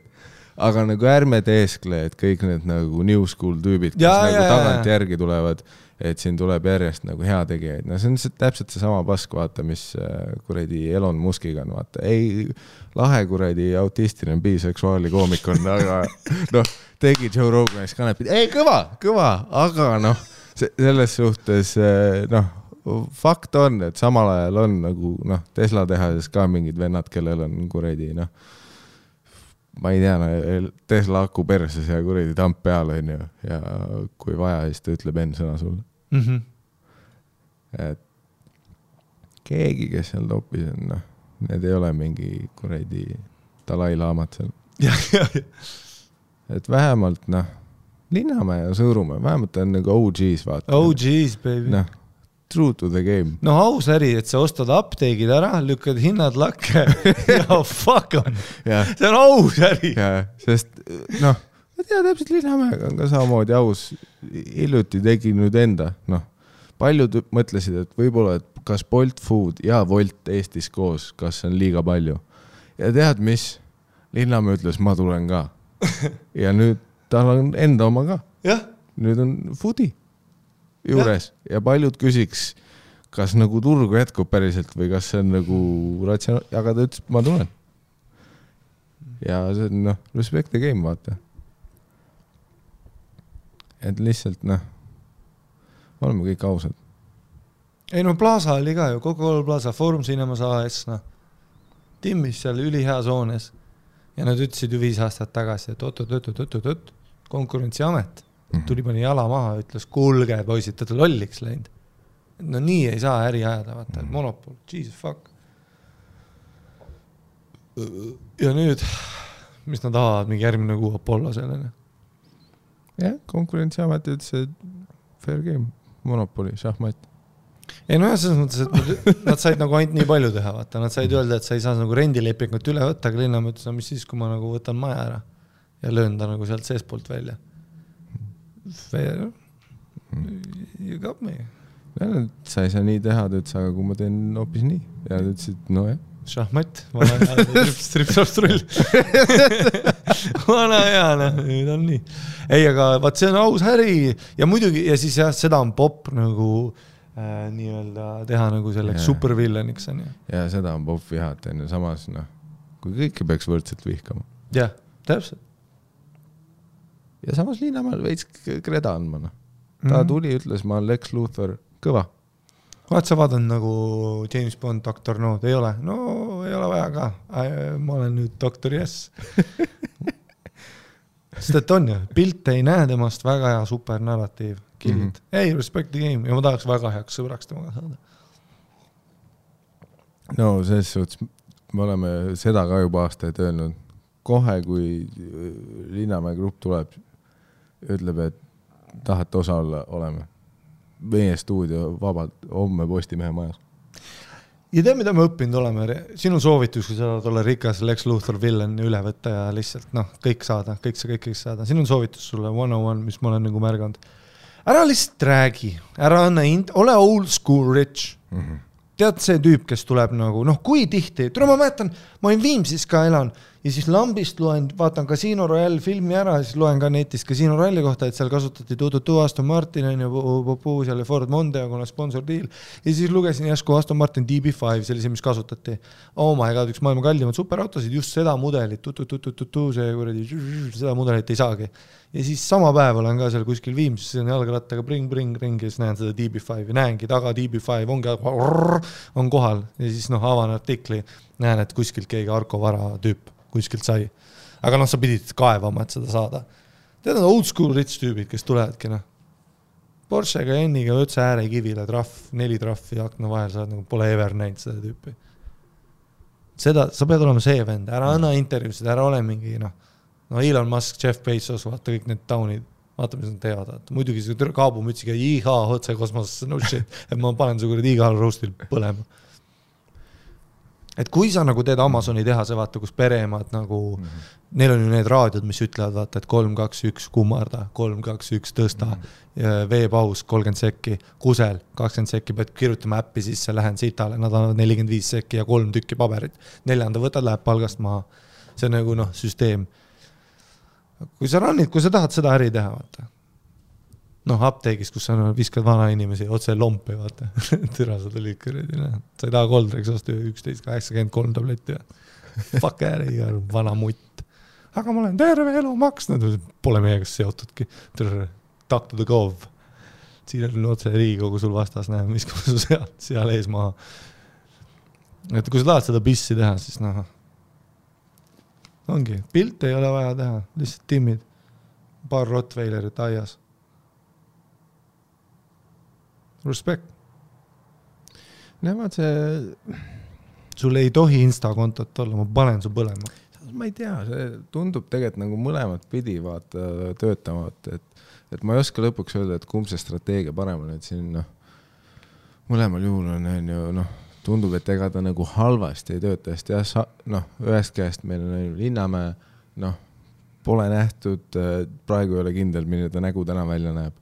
Aga nagu ärme teeskle, et kõik need nagu new school tüübid, kes nagu tagant järgi tulevad, et siin tuleb järjest nagu hea tegijaid. See on täpselt see sama pask, vaata, mis kuradi Elon Muskiga on, vaata. Ei, lahe kuradi autistiline biseksuaali koomik on, aga tegi Joe Roganis kanepid. Ei, kõva, aga selles suhtes, fakt on, et samal ajal on nagu, Tesla tehases ka mingid vennad, kellel on kuradi, ma ei tea, Tesla aku perses ja kuradi tamp peal on ju, ja kui vaja, siis ta ütleb enne sõna sulle. et keegi, kes seal topis on, noh, need ei ole mingi kuradi Dalai-laamat seal. Et vähemalt, noh, Linnamäe ja Sõõrumäe, vähemalt on nagu OGs, vaata. OGs, baby. Noh, true to the game. No aus äri, et sa ostad apteegid ära, lükkad hinnad lakke ja fuck on. See on aus äri. Sest, noh, ma tea, täpselt Linnamäega on ka samamoodi aus. Hiljuti tegi nüüd enda, noh, paljud mõtlesid, et võib-olla, et kas Bolt Food ja Volt Eestis koos, kas on liiga palju. Ja tead, mis? Linnamäe ütles, ma tulen ka. Ja nüüd tal on enda oma ka. Jah. Nüüd on foodi juures. Ja paljud küsiks, kas nagu turgu jätkub päriselt või kas see on nagu ratsionaalne. Aga ta ütles, ma tulen. Ja see on, noh, respect the game, vaata. Et lihtsalt, noh, oleme kõik ausad. Ei, no Plaza oli ka ju, Coca-Cola Plaza, Forum Cinemas AS, noh. Timmis seal ülihea soones. Ja nad ütlesid ju 5 aastat tagasi, et oot, konkurentsiamet tuli pani jala maha, ütles, kuulge, poisid, ta lolliks läinud. No nii ei saa äri ajada, vaata, monopol, Jesus fuck. Ja nüüd, mis nad tahavad, mingi järgmine kuu Apollo sellele? Jah, konkurentsiamet ütles, et fair game, monopoli, šahmat. Ei, no jah, selles mõttes, et nad said nagu ainult nii palju teha, vaata. Nad said öelda, et sa ei saa nagu rendilepingut üle võtta, aga Linnamäe ütles, no mis siis, kui ma nagu võtan maja ära ja löön ta nagu sealt seespoolt välja. Fair. You got me. Ja, sa ei saa nii teha, ta ütles, aga kui ma teen hoopis nii. Ja ta ütles, et no jah. Šahmat, vana hea, stripstrull. Vana hea, nüüd on nii. Ei, aga vaat see on aus äri ja muidugi, ja siis jah, seda on pop nagu nii-öelda teha nagu selleks supervillaniks on ju. Ja seda on pop vihat, enne samas, noh, kui kõike peaks võrdselt vihkama. Jah, täpselt. Ja samas Linnamäel veits kreda andma, noh. Ta tuli, ütles, ma olen Lex Luthor kõva. Vaat sa vaadanud nagu James Bond, Dr. No, ei ole? No, ei ole vaja ka. Ma olen nüüd Dr. Yes. Sest et on ju, pilt ei näe temast väga hea supernarratiiv. Killid. Ei, respect the game. Ja ma tahaks väga heaks sõbraks temaga saada. No, selles suhtes me oleme seda ka juba aastaid öelnud. Kohe, kui Linnamäe grupp tuleb, ütleb, et tahate osa olla, oleme. Meie stuudio vabalt, homme Postimehe majas. Ja tea, mida me õppinud oleme? Sinu soovitus, kui sa tahad olla rikas Lex Luthor villain üle võtta ja lihtsalt, noh, kõik saada, kõik saada. Sinu soovitus sulle 101, mis ma olen nagu märganud. Ära lihtsalt räägi, ära anna ole old school rich. Tead see tüüp, kes tuleb nagu, noh, kui tihti, ma mäletan, ma olin Viimsis ka elan ja siis Lambist loen, vaatan Casino Royale filmi ära ja siis loen ka netist Casino Royale'i kohta, et seal kasutati Aston Martin ja seal Ford Mondeo, kuna sponsor deal. Ja siis lugesin järsku Aston Martin DB5, see oli see, mis kasutati. Oh my god, üks maailma kallimad superautosid, just seda mudelit, seda mudelit ei saagi. Ja siis sama päev olen ka seal kuskil Viimsis, see on jalgrattaga ring ja siis näen seda DB5 ja näengi taga DB5 on kohal ja siis noh, avan artikli, näen, et kuskilt keegi Arko Vara tüüp kuskilt sai. Aga noh, sa pidid kaevama, et seda saada. Tead on old school rich tüübid, kes tulevadki, noh. Porschega ja Enniga ötse ääre kivile, 4 traffi akna vahel, sa nagu pole ever näinud seda tüüpi. Seda, sa pead olema see vend, ära anna intervjuusid, ära ole mingi, noh, Elon Musk, Jeff Bezos, vaata kõik need taunid, vaata, mis nad teevad. Muidugi see kaabumütsiga, otse kosmosesse, no shit, et ma panen su kuradi igal roastil põlema. Et kui sa nagu teed Amazoni tehase, vaata, kus pereemad nagu, neil on ju need raadiod, mis ütlevad, vaata, et 3, 2, 1 kummarda, 3, 2, 1 tõsta, veepaus 30 sekki, kusel 20 sekki, pead kirjutama äppi sisse, lähen sitale, nad annavad 45 sekki ja 3 tükki paberit. 4. võtad, läheb palgast maha. See on nagu, noh, süsteem. Kui sa tahad seda äri teha, vaata. Noh, apteegis, kus sa viskad vana inimesi, otse lompi, vaata. Türa, sa tulid kõredi. Sa ei taha Goldrex osta 11,83 tabletti. Fuck äri, vana mutt. Aga ma olen terve elu maksnud. Pole meiega seotudki. Talk to the gov. Siin on otse Riigikogu sul vastas, näe, mis kui su seal ees maha. Et kui sa tahad seda bissi teha, siis noh, ongi. Pilt ei ole vaja teha. Lihtsalt timmid. Paar Rottweilerit aias. Respect. Nemad see... Sul ei tohi Insta-kontot olla, ma panen su põlema. Ma ei tea, see tundub tegelikult nagu mõlemat pidi vaata töötama, et ma ei oska lõpuks öelda, et kumb see strateegia parem on, et siin mõlemal juhul on ju, tundub, et ega ta nagu halvasti ei tööta, sest ühest käest meil on Linnamäe, pole nähtud, praegu ei ole kindel, milline ta nägu täna välja näeb.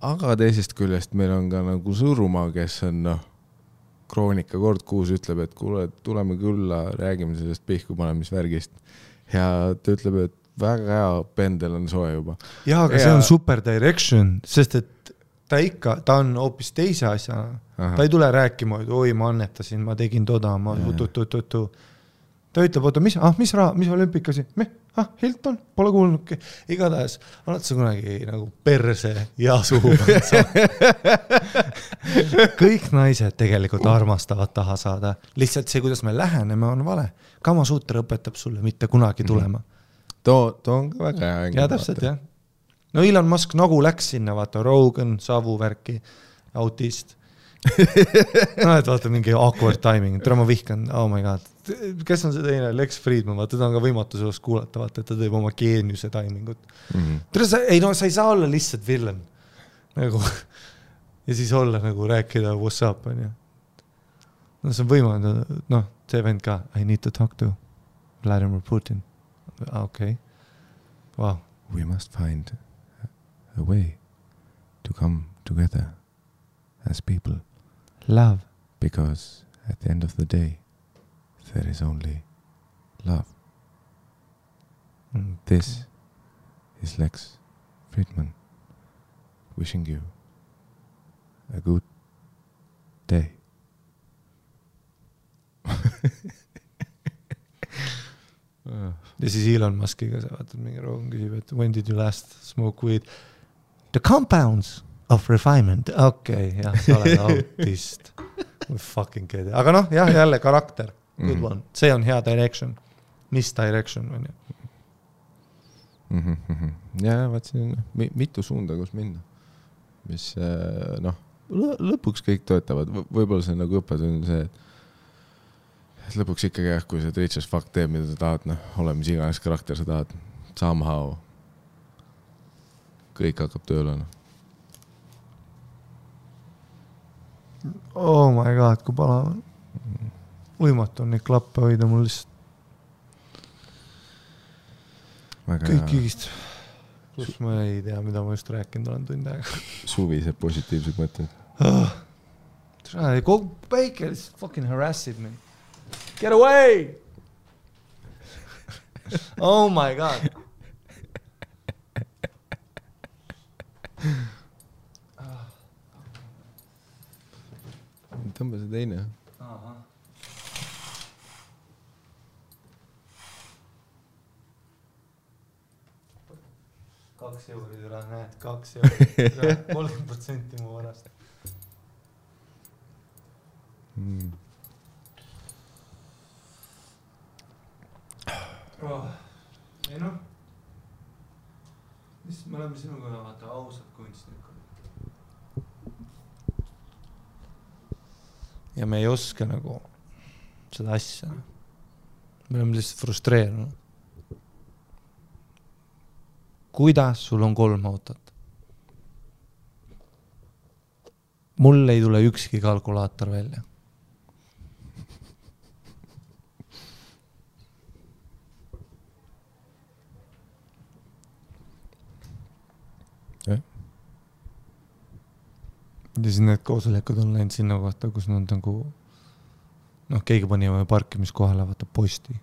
Aga teisest küljest meil on ka nagu Sõõrumaa, kes on Kroonika kord kuus ütleb, et kuule, tuleme külla, räägime sellest pihku panemisvärgist. Ja ta ütleb, et väga hea pendel on soe juba. Jaa, aga see on super direction, sest et ta on hoopis teise asja. Ta ei tule rääkima, et oi, ma annetasin, ma tegin toda, ma tutu. Ta ütleb, oota, mis olümpikasi? Hilton, pole kuulnudki. Igatahes, oled sa kunagi nagu perse ja suhu. Kõik naised tegelikult armastavad taha saada. Lihtsalt see, kuidas me läheneme, on vale. Kamasuuter õpetab sulle mitte kunagi tulema. Too on ka väga hea. Ja täpselt, jah. No Elon Musk nagu läks sinna, vaata Rogan, savuvärki, autist. Et vaata mingi awkward timing. Tere, ma vihkan, oh my god. Kes on see teine? Lex Friedman, vaata, ta on ka võimatu sellest kuulata, vaata, et ta teeb oma geeniuse timingut. Tere, sa ei saa olla lihtsalt villain. Nagu, ja siis olla nagu rääkida what's up, on ju. No see on võimalik, see vend ka. I need to talk to Vladimir Putin. Okay. Wow. We must find a way to come together as people. Love. Because at the end of the day, there is only love. This is Lex Friedman wishing you a good day. Ja siis Elon Muskiga sa vaatad mingi Rogan küsib, et when did you last smoke weed? The compounds of refinement. Okei, jah, sa oled autist. Fucking kede. Aga jah, jälle karakter. Good one. See on hea direction. Mis direction on ju? Ja, vaat siin mitu suunda, kus minna. Mis, lõpuks kõik töötavad. Võib-olla see nagu õppetund see, et lõpuks ikkagi jah, kui see rich as fuck teeb, mida sa tahad, ole mis iganes karakter sa tahad, somehow kõik hakkab tööle. Oh my god, kui palav on. Võimatu on neid klappe hoida mul lihtsalt. Kõik igist. Plus ma ei tea, mida ma just rääkinud olen tund aega. Suvised positiivsed mõtted. Kogu päike lihtsalt fucking harassid me. Get away! Oh my god. Tõmba see teine. Aha. Kaks euri üle, näed, 2 euri. 30% mu varast. Ei mis me oleme sinuga vaata ausad kunstnikud. Ja me ei oska nagu seda asja. Me oleme lihtsalt frustreerunud. Kuidas sul on 3 autot? Mul ei tule ükski kalkulaator välja. Ja siis need koosolekud on läinud sinna kohta, kus nad nagu keegi pani parkimiskohale vaata posti.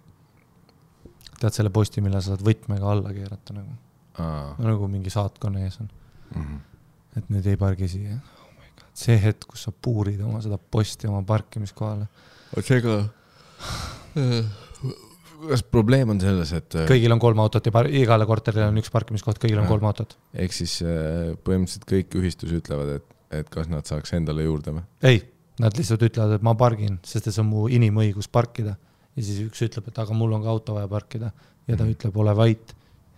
Tead selle posti, mille sa saad võtmega alla keerata nagu. Nagu mingi saatkonna ees on. Et nüüd ei pargi siia. Oh my God. See hetk, kus sa puurid oma seda posti oma parkimiskohale. Seega, kas probleem on selles, et kõigil on 3 autot ja igale korterile on 1 parkimiskoht, kõigil on 3 autot. Ehk siis põhimõtteliselt kõik ühistus ütlevad, et kas nad saaks endale juurde või? Ei, nad lihtsalt ütlevad, et ma pargin, sest see on mu inimõigus parkida. Ja siis üks ütleb, et aga mul on ka auto vaja parkida. Ja ta ütleb, ole vait.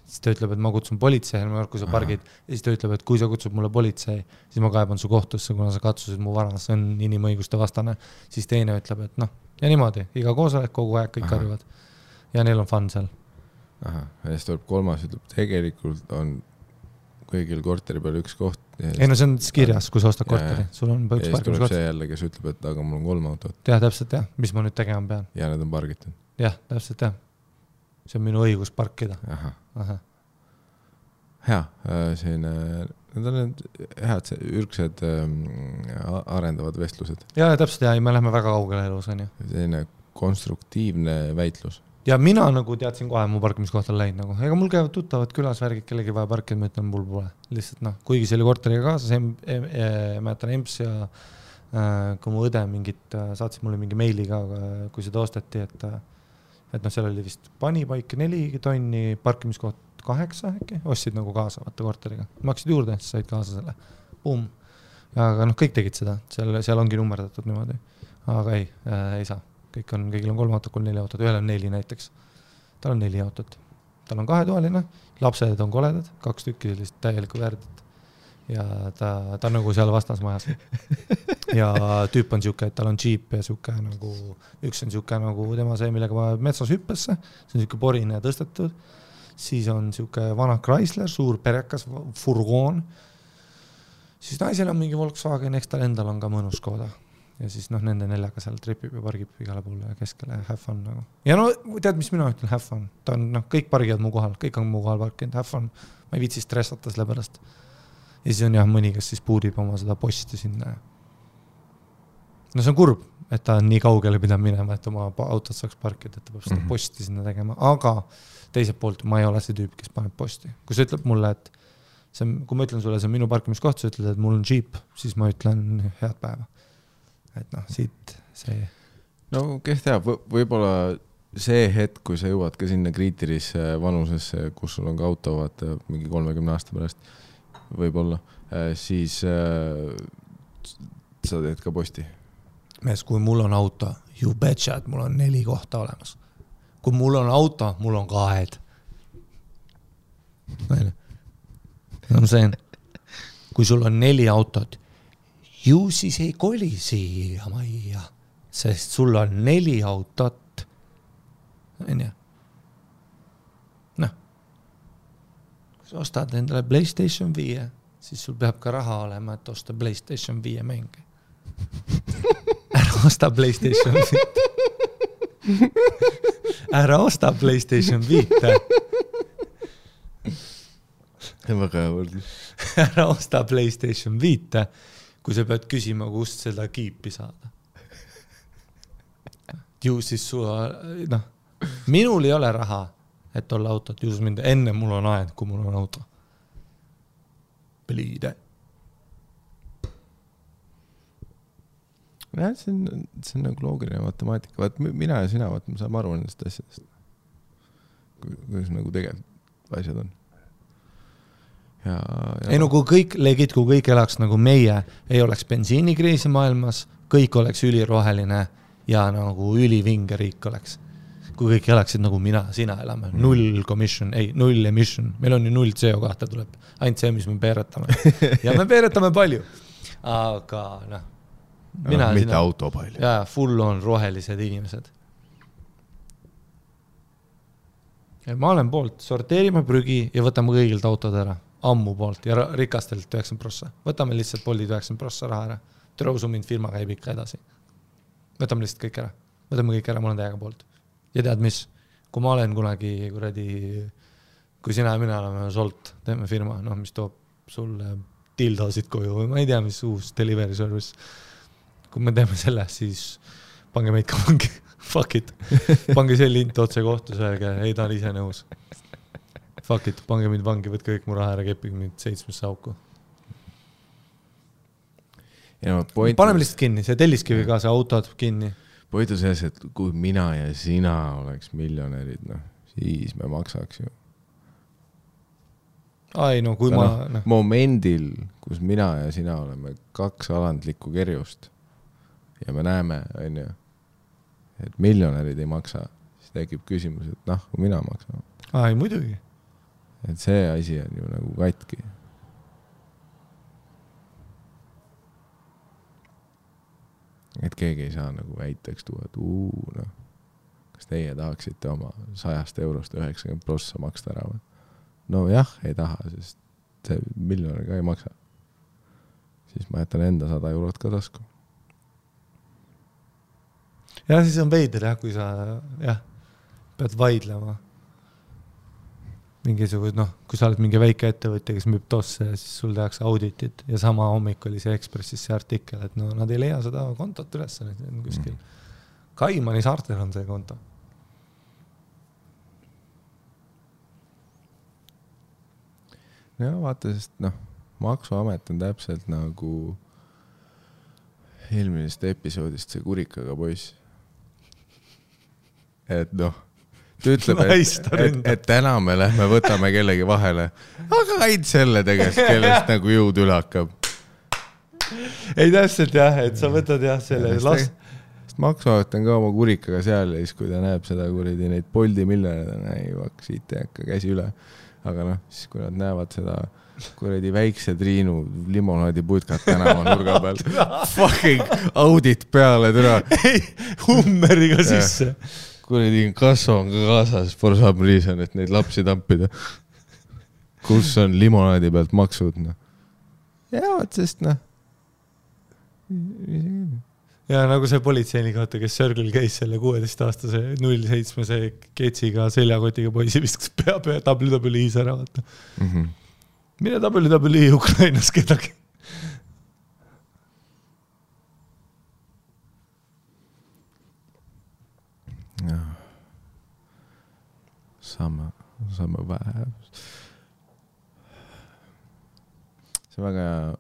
siis ta ütleb, et ma kutsun politsei, kui sa pargid, ja siis ta ütleb, et kui sa kutsud mulle politsei, siis ma kaeban su kohtusse, kuna sa katsusid mu vara, see on inimõiguste vastane, siis teine ütleb, et noh, ja niimoodi, iga koosolek kogu aeg kõik karjuvad ja neil on fun seal. Ja siis tuleb kolmas, ütleb, tegelikult on kõigil korteri peal üks koht. Ei no see on kirjas, kui sa ostad korteri, sul on üks parkimiskoht. Ja siis tuleb see jälle, kes ütleb, et aga mul on 3 autot. Jah, täpselt jah, mis ma nüüd tegema pean. Ja need on pargitud. Jah, täpselt jah. See on minu õigus parkida. Aha. Hea, need on head ürgsed arendavad vestlused. Ja täpselt ja me läheme väga kaugele elus, on ju. Selline konstruktiivne väitlus. Ja mina nagu teadsin kohe, mu parkimiskoht on läinud nagu. Ega mul käivad tuttavad külas värgid, kellegi vaja parkida, ma ütlen, mul pole. Lihtsalt noh, kuigi see oli korteriga kaasas, mäletan EMS ja kui mu õde mingit, saatsid mulle mingi meili ka, kui seda osteti, et noh, seal oli vist panipaik 4 tonni, parkimiskoht 8 äkki, ostsid nagu kaasa vaata korteriga. Maksid juurde, siis said kaasa selle. Boom. Aga noh, kõik tegid seda, seal ongi nummerdatud niimoodi. Aga ei saa. Kõigil on 3 autot, 4 autot, ühel on 4 näiteks. Tal on 4 autot. Tal on 2-toaline, lapsed on koledad, 2 tükki sellist täielikku värdit. Ja ta on nagu seal vastasmajas. Ja tüüp on siuke, et tal on Jeep ja siuke nagu, üks on siuke nagu tema see, millega ma metsas hüppesse, see on siuke porine ja tõstetud. Siis on siuke vana Chrysler, suur perekas furgoon. Siis naisel on mingi Volkswagen, eks tal endal on ka mõnus Škoda. Ja siis noh, nende 4 seal tripib ja pargib igale poole ja keskele have fun nagu. Ja no tead, mis mina ütlen, have fun. Ta on, noh, kõik pargivad mu kohal, kõik on mu kohal parkinud, have fun. Ma ei viitsi stressata selle pärast. Ja siis on jah mõni, kes siis puudib oma seda posti sinna. No see on kurb, et ta on nii kaugele pidanud minema, et oma autot saaks parkida, et ta peab seda posti sinna tegema. Aga teiselt poolt ma ei ole see tüüp, kes paneb posti. Kui sa ütleb mulle, et see, kui ma ütlen sulle, see on minu parkimiskoht, sa ütled, et mul on Jeep, siis ma ütlen head päeva. Et noh, siit see... No kes teab, võib-olla see hetk, kui sa jõuad ka sinna kriitilisse vanusesse, kus sul on ka auto, vaata, mingi 30 aasta pärast, võib-olla, siis sa teed ka posti. Mees, kui mul on auto, you betcha, et mul on 4 kohta olemas. Kui mul on auto, mul on 2. Kui sul on 4 autot, ju siis ei koli siia majja, sest sul on 4 autot. Noh, kui sa ostad endale PlayStation 5, siis sul peab ka raha olema, et osta PlayStation 5 mänge. Ära osta PlayStation 5. Ära osta PlayStation 5. Väga hea võrdlus. Ära osta PlayStation 5. Kui sa pead küsima, kust seda kiipi saada. Ju siis noh, minul ei ole raha, et olla autot, ju siis mind enne mul on aed, kui mul on auto. Pliide. Ja, see on nagu loogiline matemaatika. Vaat mina ja sina, vaat me saame aru nendest asjadest. Kuidas nagu tegelikult asjad on. Ja. Ei no kui kõik elaks nagu meie, ei oleks bensiinikriisi maailmas, kõik oleks üliroheline ja nagu ülivinge riik oleks. Kui kõik elaksid nagu mina, sina elame, 0 emission, meil on ju 0 CO2 tuleb, ainult see, mis me peeretame. Ja me peeretame palju, aga noh, mina mitte auto palju. Ja full on rohelised inimesed. Ja ma olen poolt, sorteerime prügi ja võtame kõigilt autod ära. Ammu poolt ja rikastelt 90%. Võtame lihtsalt Boltid 90% raha ära. Trõusu mind firma käib ikka edasi. Võtame lihtsalt kõik ära. Võtame kõik ära, mul on täiega poolt. Ja tead mis? Kui ma olen kunagi kui sina ja mina oleme Solt, teeme firma, noh, mis toob sulle dildosid koju või ma ei tea, mis uus delivery service. Kui me teeme selle, siis pange meid ka vangi. Fuck it. Pange see lint otse kohtus, öelge, ei ta on ise nõus. Fuck it, pange mind vangi, võtke kõik mu raha ära, keppige mind 7 auku. Paneme lihtsalt kinni, see telliskivi ka, see autod kinni. Point on selles, et kui mina ja sina oleks miljonärid, noh, siis me maksaks ju. Ai, no kui ma... Momendil, kus mina ja sina oleme 2 alandlikku kerjust ja me näeme, on ju, et miljonärid ei maksa, siis tekib küsimus, et noh, kui mina maksan. Ai, muidugi. et see asi on ju nagu katki. Et keegi ei saa nagu väiteks tuua, et noh, kas teie tahaksite oma 100 eurost 90% maksta ära või? No jah, ei taha, sest see miljonär ka ei maksa. Siis ma jätan enda 100 eurot ka tasku. Ja siis on veider jah, kui sa pead vaidlema. Mingisugust, kui sa oled mingi väike ettevõtja, kes müüb tosse ja siis sul tehakse auditit ja sama hommik oli see Ekspressis see artikkel, et nad ei leia seda kontot üles kuskil. Kaimani saartel on see konto. No vaata, sest Maksuamet on täpselt nagu eelmisest episoodist see kurikaga poiss. Et ta ütleb, et täna me lähme võtame kellegi vahele, aga ainult selle tegest, kellest nagu jõud üle hakkab. Ei täpselt jah, et sa võtad selle last. Sest Maksuamet on ka oma kurikaga seal ja siis kui ta näeb seda kuridi neid Bolti miljonäre, siit ei hakka käsi üle. Aga siis kui nad näevad seda kuridi väikse Triinu limonaadi putkat tänava nurga peal, fucking audit peale türa. Hummeriga sisse. Kuridi kasvo on ka kaasas for some reason, et neid lapsi tampida. Kus on limonaadi pealt maksud? Ja, sest Ja nagu see politseinik, kes Sörgil käis selle 16-aastase 07-se ketsiga seljakotiga poisi viskas pea WWE-s ära. Mine WWE Ukrainas kedagi. Sama vähe. See väga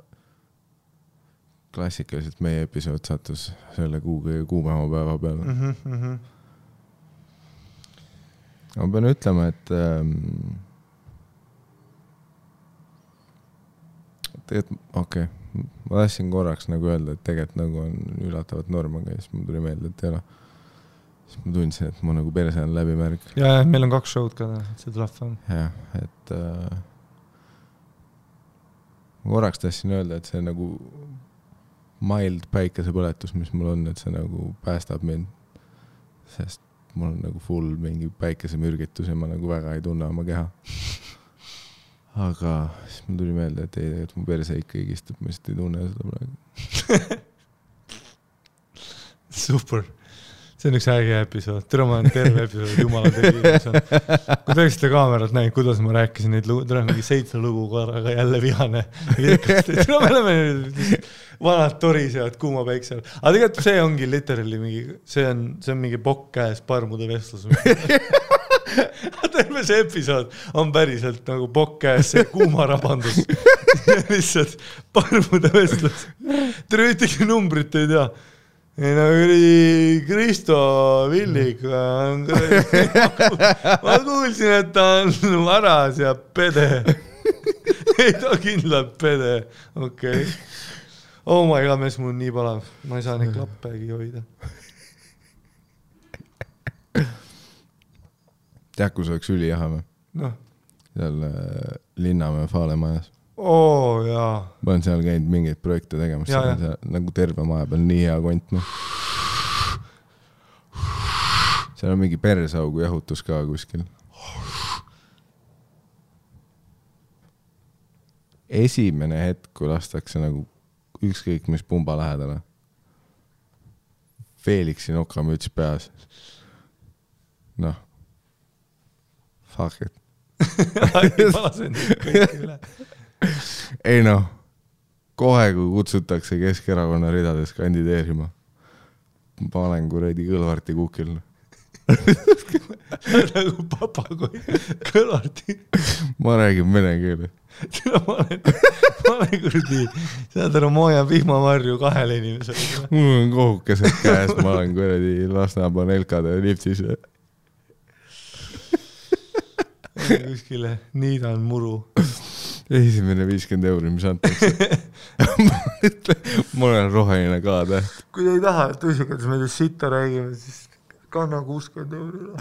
klassikaliselt meie episood sattus selle kuumema päeva peale. Ma pean ütlema, et okei, ma tahtsin korraks nagu öelda, et tegelikult nagu on üllatavalt norm, aga siis mul tuli meelde, et ei ole. Siis ma tundsin, et ma nagu perse on läbimärg. Ja meil on 2 show'd ka, see tuleb on. Ja, et ma korraks tahtsin öelda, et see nagu mild päikesepõletus, mis mul on, et see nagu päästab mind. Sest mul on nagu full mingi päikesemürgitus ja ma nagu väga ei tunne oma keha. Aga siis mul tuli meelde, et ei, et mu perse ikka igistub, ma lihtsalt ei tunne seda praegu. Super. See on üks äge episood. Tere, ma olen terve episood, jumala tegi. Kui tõeksite kaamerat näin, kuidas ma rääkisin neid lugu, tere mingi 7 lugu korraga jälle vihane. Tere, me oleme vanad torisevad kuuma päiksel. Aga tegelikult see ongi literally mingi, see on mingi pokk käes parmude vestlus. Terve see episood on päriselt nagu pokk käes, see kuuma rabandus. Lihtsalt parmude vestlus. Tere, ühtegi numbrit ei tea. Ei Kristo Villik, ma kuulsin, et ta on varas ja pede. Ei ta kindlalt pede, okei. Oh my god, mees, mul on nii palav. Ma ei saa neid klappegi hoida. Tead, kus oleks ülijaha või? Seal Linnamäe Faalemajas. Jaa. Ma olen seal käinud mingeid projekte tegemas. Nagu terve maja peal nii hea kont. Seal on mingi persaugu jahutus ka kuskil. Esimene hetk, kui lastakse nagu ükskõik mis pumba lähedale. Felixi nokamüts peas. Fuck it. Ei kohe kui kutsutakse Keskerakonna ridades kandideerima, ma olen kuredi Kõlvarti kukil. Nagu papagoi Kõlvarti. Ma räägin vene keele. Ma olen kurdi, saad aru Mooja vihmavarju 2 inimesele. Mul on kohukesed käes, ma olen kuredi Lasnamäe Nelkade liftis. Kuskile niidan muru. Esimene 50 €, mis antakse. Ma olen roheline ka täht. Kui ei taha, et tõsikades meile sitta räägime, siis kanna 60 €.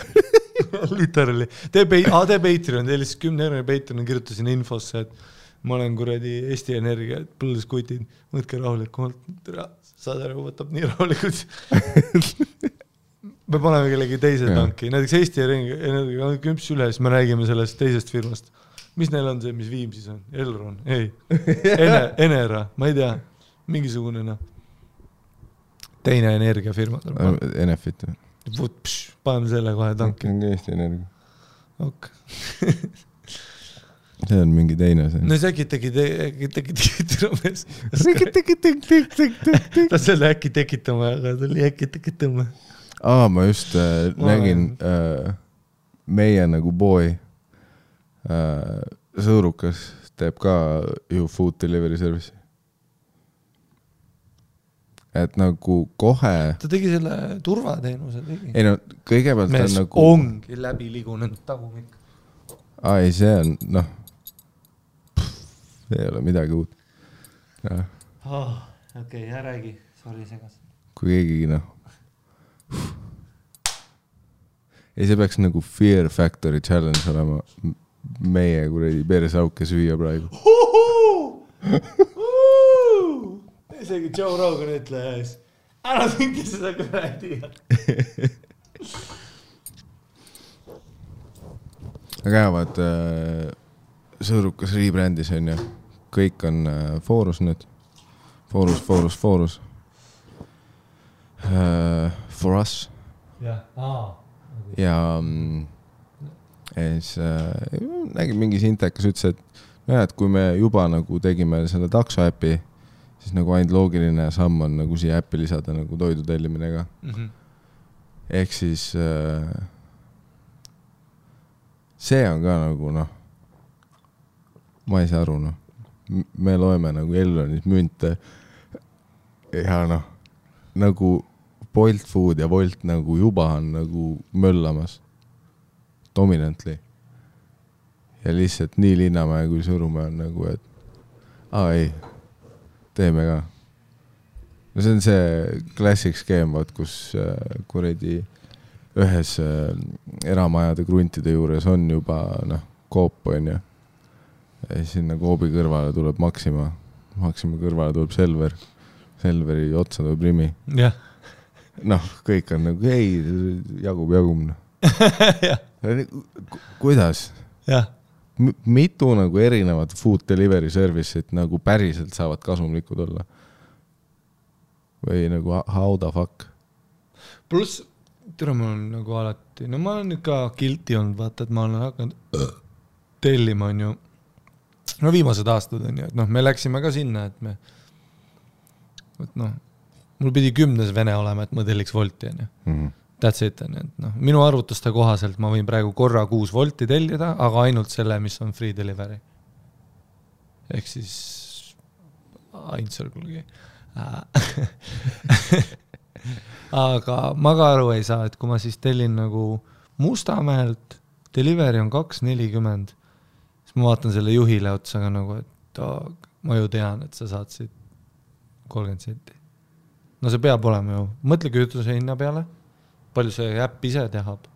Literally. Tee Patreon, tee lihtsalt 10 € Patreon, kirjutasin infosse, et ma olen kuradi Eesti Energia, et põldeskutid, võtke rahulikult, saad aru, võtab nii rahulikult. Me paneme kellegi teise tanki, näiteks Eesti Energia kümps üle, siis me räägime sellest teisest firmast. Mis neil on see, mis Viimsis on? Elron? Ei. Enera, ma ei tea. Mingisugune teine energiafirma. Enefit. Paneme selle kohe tanki. Eesti Energia. Ok. See on mingi teine see. No see äkki ta selle äkki tekitama, aga ta oli äkki tekitama. Ma just nägin meie nagu boy sõurukas teeb ka ju food delivery service. Et nagu kohe... Ta tegi selle turvateenuse tegi. Ei no, kõigepealt mees nagu... ongi läbi ligunenud tagumik. Ei, see on, noh... See ei ole midagi uut. Okei, räägi. Sorry, segas. Kui keegi, noh... Ei, see peaks nagu Fear Factory Challenge olema meie kuradi peresauke süüa praegu. Isegi Joe Rogan ütles, ära mingi seda kuradi. Aga jäävad sõõrukas rebrändis on ju. Kõik on Forus nüüd. Forus. For us. Ja siis nägin mingi sintekas ütles, et kui me juba nagu tegime selle takso äpi, siis nagu ainult loogiline samm on nagu siia äppi lisada nagu toidu tellimine ka. Ehk siis see on ka nagu ma ei saa aru me loeme nagu Elronis münte ja nagu Bolt Food ja Volt nagu juba on nagu möllamas dominantly ja lihtsalt nii Linnamäe kui Sõrumäe on nagu, et ei, teeme ka. No see on see classic skeem, kus kuredi ühes eramajade kruntide juures on juba koop on ju. Ja sinna koobi kõrvale tuleb Maxima kõrvale tuleb Selveri otsa tuleb Rimi. Jah. Kõik on nagu, ei, jagub. Kuidas? Jah. Mitu nagu erinevad food delivery service'id nagu päriselt saavad kasumlikud olla? Või nagu how the fuck? Plus, tere mul on nagu alati, ma olen ikka guilty olnud, vaata, et ma olen hakanud tellima on ju, viimased aastad on ju, et me läksime ka sinna, et mul pidi 10. vene olema, et ma telliks Volti on ju. That's it on ju, et minu arvutuste kohaselt ma võin praegu korra 6 Volti tellida, aga ainult selle, mis on free delivery. Ehk siis Ainsõrgulgi. Aga ma ka aru ei saa, et kui ma siis tellin nagu Mustamäelt, delivery on 2.40, siis ma vaatan selle juhile otsaga nagu, et ma ju tean, et sa saad siit 30 senti. No see peab olema ju. Mõtle kütuse hinna peale, palju see äpp ise tehab.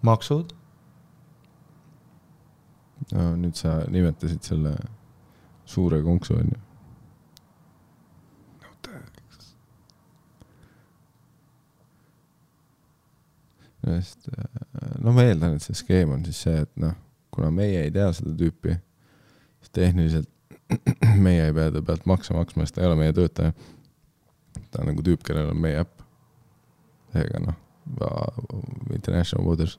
Maksud. Nüüd sa nimetasid selle suure konksu on ju. Ma eeldan, et see skeem on siis see, et kuna meie ei tea seda tüüpi, siis tehniliselt meie ei pea ta pealt maksma, sest ta ei ole meie töötaja. Ta on nagu tüüp, kellel on meie äpp. Seega International Waters.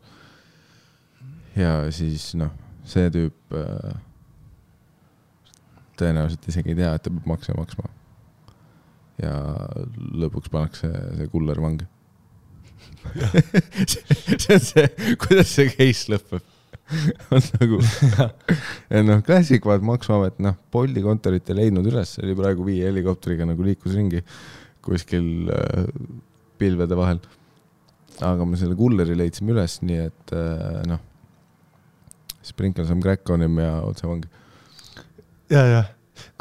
Ja siis see tüüp tõenäoliselt isegi ei tea, et ta peab maksma. Ja lõpuks pannakse see kuller vangi. See on see, kuidas see case lõpeb. On nagu klassik vaat Maksuamet, Bolti kontorit ei leidnud üles, oli praegu 5 helikopteriga nagu liikus ringi kuskil pilvede vahel. Aga me selle kulleri leidsime üles, nii et sprinkle some crack on him ja otse vangi. Ja.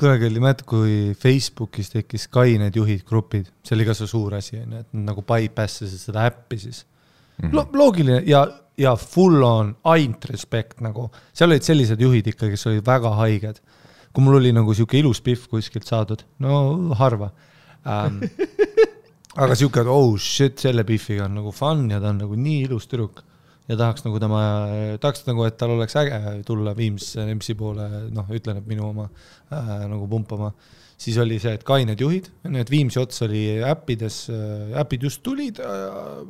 Kunagi oli mäed, kui Facebookis tekkis Sky need juhid grupid, see oli ka see suur asi, et nagu bypassasid seda äppi siis. Loogiline ja full on ainult respekt nagu. Seal olid sellised juhid ikka, kes olid väga haiged. Kui mul oli nagu siuke ilus pihv kuskilt saadud, no harva. Aga siuke, et oh shit, selle pihviga on nagu fun ja ta on nagu nii ilus tüdruk. Ja tahaks nagu, et tal oleks äge tulla Viimsi MC poole, noh, ütlen, et minu oma nagu pumpama. Siis oli see, et kained juhid, need Viimsi ots oli äppides, äpid just tulid,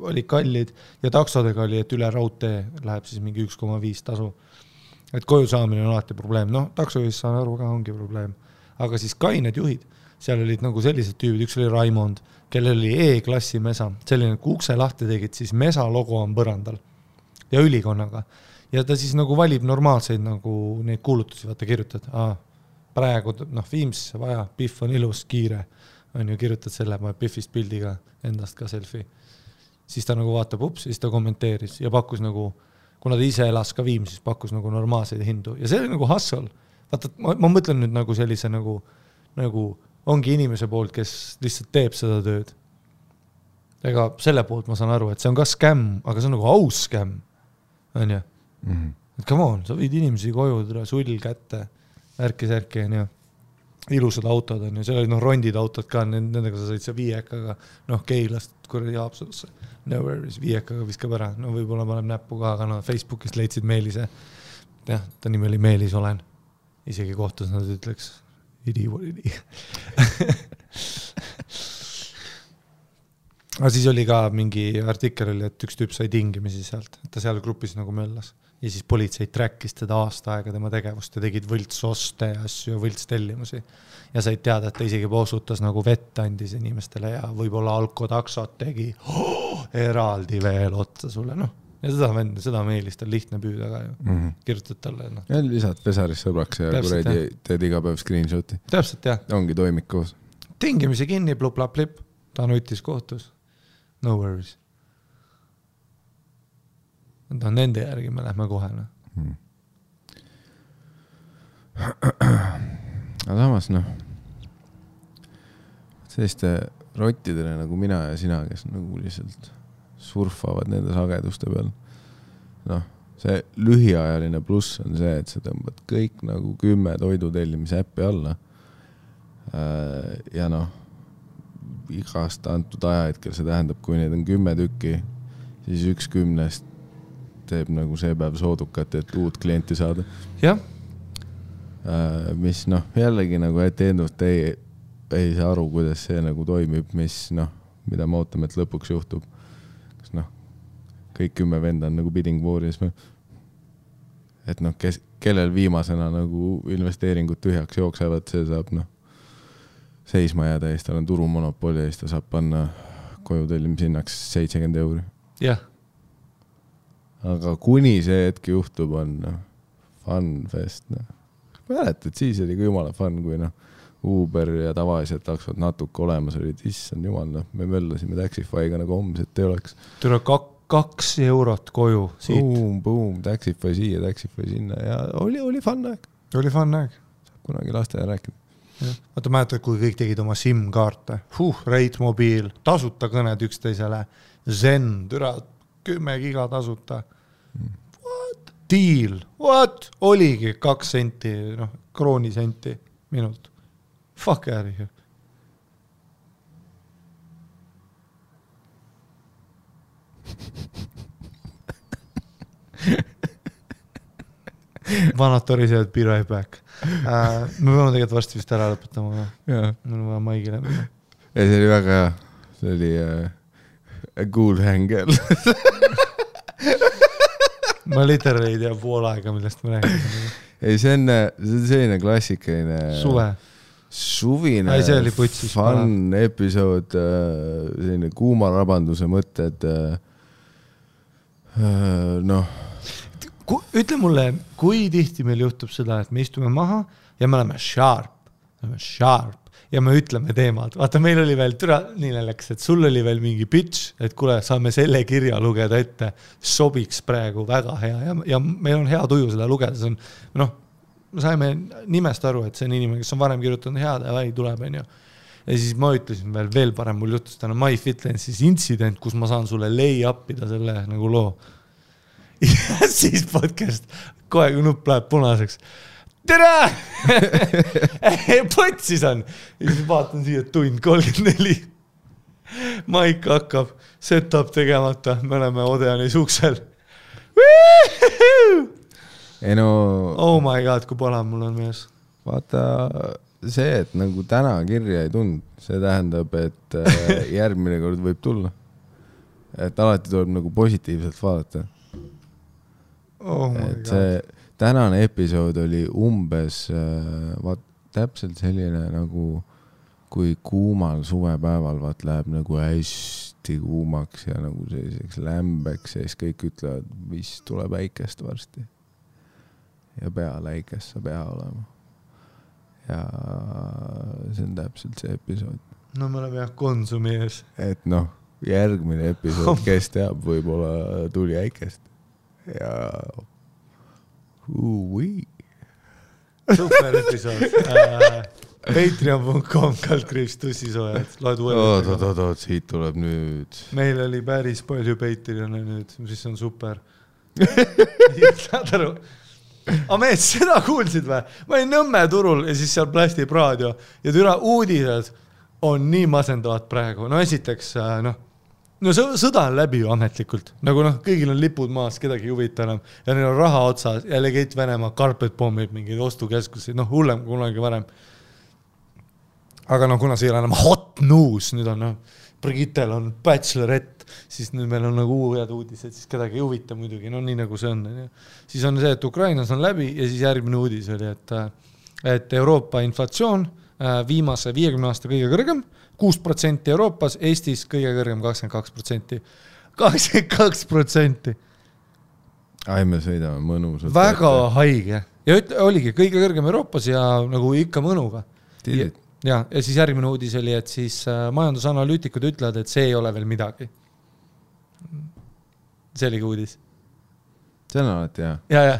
oli kallid ja taksodega oli, et üle raudtee läheb siis mingi 1,5 tasu. Et koju saamine on alati probleem. Noh, taksojuhis saan aru ka ongi probleem. Aga siis kained juhid, seal olid nagu sellised tüübid, üks oli Raimond, kellel oli E-klassi mesa. Selline, kui ukse lahti tegid, siis mesa logo on põrandal ja ülikonnaga. Ja ta siis nagu valib normaalseid nagu neid kuulutusi, vaata kirjutad, praegu Viimsisse vaja, pihv on ilus, kiire, on ju, kirjutad selle, ma pihvist pildiga endast ka selfie. Siis ta nagu vaatab ups, siis ta kommenteeris ja pakkus nagu, kuna ta ise elas ka Viimsis, pakkus nagu normaalseid hindu. Ja see oli nagu hustle. Vaata, ma mõtlen nüüd nagu sellise nagu ongi inimese poolt, kes lihtsalt teeb seda tööd. Ega selle poolt ma saan aru, et see on ka scam, aga see on nagu aus scam. On ju? Et come on, sa võid inimesi koju, sull kätte, ärki, on ju. Ilusad autod on ju, seal olid rondid autod ka, nendega sa said see viiekaga, Keilast kuradi Haapsalusse. No worries, viiekaga viskab ära. No võib-olla paneb näppu ka, aga Facebookist leidsid Meelise. Jah, ta nimi oli Meelis olen. Isegi kohtus nad ütleks, idi. Aga siis oli ka mingi artikkel oli, et üks tüüp sai tingimisi sealt, et ta seal grupis nagu möllas. Ja siis politsei trackis teda aasta aega tema tegevust ja tegid võltsoste ja asju ja võltstellimusi. Ja said teada, et ta isegi posutas nagu vett andis inimestele ja võib-olla alkotaksot tegi eraldi veel otsa sulle. Ja seda Meelist on lihtne püüda ka ju. Kirjutad talle. Ja lisad pesaris sõbraks ja kuredi teed iga päev screenshoti. Täpselt, jah. Ongi toimik koos. Tingimisi kinni, plup-lap-lip. Ta nutis kohtus. No worries. Nende järgi me lähme kohe. Aga samas, selliste rottidele nagu mina ja sina, kes nagu lihtsalt surfavad nende sageduste peal. See lühiajaline pluss on see, et sa tõmbad kõik nagu 10 toidutellimise äppi alla. Ja igast antud ajahetkel see tähendab, kui neid on 10 tükki, siis 1 10 teeb nagu see päev soodukat, et uut klienti saada. Jah. Mis jällegi nagu etendust ei saa aru, kuidas see nagu toimib, mida me ootame, et lõpuks juhtub. Kas kõik 10 venda on nagu bidding war'is. Et kellel viimasena nagu investeeringud tühjaks jooksevad, see saab seisma jääda ja siis tal on turumonopoli ja siis ta saab panna koju tellimishinnaks 70 €. Jah. Aga kuni see hetk juhtub, on fun fest. Mäletad, siis oli jumala fun, kui Uber ja tavaliselt taksod natuke olemas olid. Issand jumal, me möllasime Taxify'ga nagu homset ei oleks. Tule 2 eurot koju siit. Boom, Taxify siia, Taxify sinna ja oli fun aeg. Oli fun aeg. Saab kunagi laste rääkida. Vaata, mäletad, kui kõik tegid oma SIM-kaarte. Rate mobiil, tasuta kõned üksteisele. Zen, 10 giga tasuta. What? Deal. What? Oligi 2 senti, kroonisenti minut. Fuck out of here. Vanad torised, be right back. Me peame tegelikult varsti vist ära lõpetama. Mul on vaja maigile. See oli väga hea. See oli a cool hangel. Ma literally ei tea pool aega, millest ma räägin. Ei, see on selline klassikaline suvine fun episood, selline kuuma rabanduse mõtted. Ütle mulle, kui tihti meil juhtub seda, et me istume maha ja me oleme sharp ja me ütleme teemad. Vaata, meil oli veel nii läks, et sul oli veel mingi pitch, et kuule, saame selle kirja lugeda ette, sobiks praegu väga hea ja meil on hea tuju seda lugeda. See on, me saime nimest aru, et see on inimene, kes on varem kirjutanud head ja tuleb, on ju. ja siis ma ütlesin veel parem, mul juhtus täna MyFitnessis intsident, kus ma saan sulle lay up'ida selle nagu loo. Ja siis podcast, kohe kui nupp läheb punaseks. Tere! Potsis on. Ja siis vaatan siia tund 34. Maik hakkab, setup tegemata, me oleme Odeani suksel. Ei no... Oh my god, kui pala mul on mees. Vaata see, et nagu täna kirja ei tund, see tähendab, et järgmine kord võib tulla. Et alati tuleb nagu positiivselt vaadata. Oh my et god. see tänane episood oli umbes täpselt selline nagu kui kuumal suvepäeval läheb nagu hästi kuumaks ja nagu selliseks lämbeks ja siis kõik ütlevad, mis tuleb äikest varsti. Ja peale äikest saab hea olema. Ja see on täpselt see episood. No me oleme jah Konsumi ees. Et noh, järgmine episood, kes teab, võib-olla tuli äikest. Ja super episood. Patreon.com /tussisoojad. Loed uued. Oot, siit tuleb nüüd. Meil oli päris palju Patreone nüüd, mis on super. Saad aru? Mees, seda kuulsid või? Ma olin Nõmme turul ja siis seal Plastiv raadio ja türa uudised on nii masendavad praegu. No esiteks, no sõda on läbi ju ametlikult. Nagu kõigil on lipud maas, kedagi huvita enam. Ja neil on raha otsas ja legeit Venemaa carpet bombib mingeid ostukeskusi. Hullem kunagi varem. Aga kuna see ei ole enam hot news, nüüd on Brigittel on bachelorette, siis nüüd meil on nagu uued uudised, siis kedagi ei huvita muidugi, nii nagu see on. Siis on see, et Ukrainas on läbi ja siis järgmine uudis oli, et Euroopa inflatsioon viimase 50 aasta kõige kõrgem, 6% Euroopas, Eestis kõige kõrgem 22%. 22%. Ai, me sõidame mõnusalt. Väga haige. Ja oligi kõige kõrgem Euroopas ja nagu ikka mõnuga. Tiidid. Ja siis järgmine uudis oli, et siis majandusanalüütikud ütlevad, et see ei ole veel midagi. See oligi uudis. See on alati hea. Ja.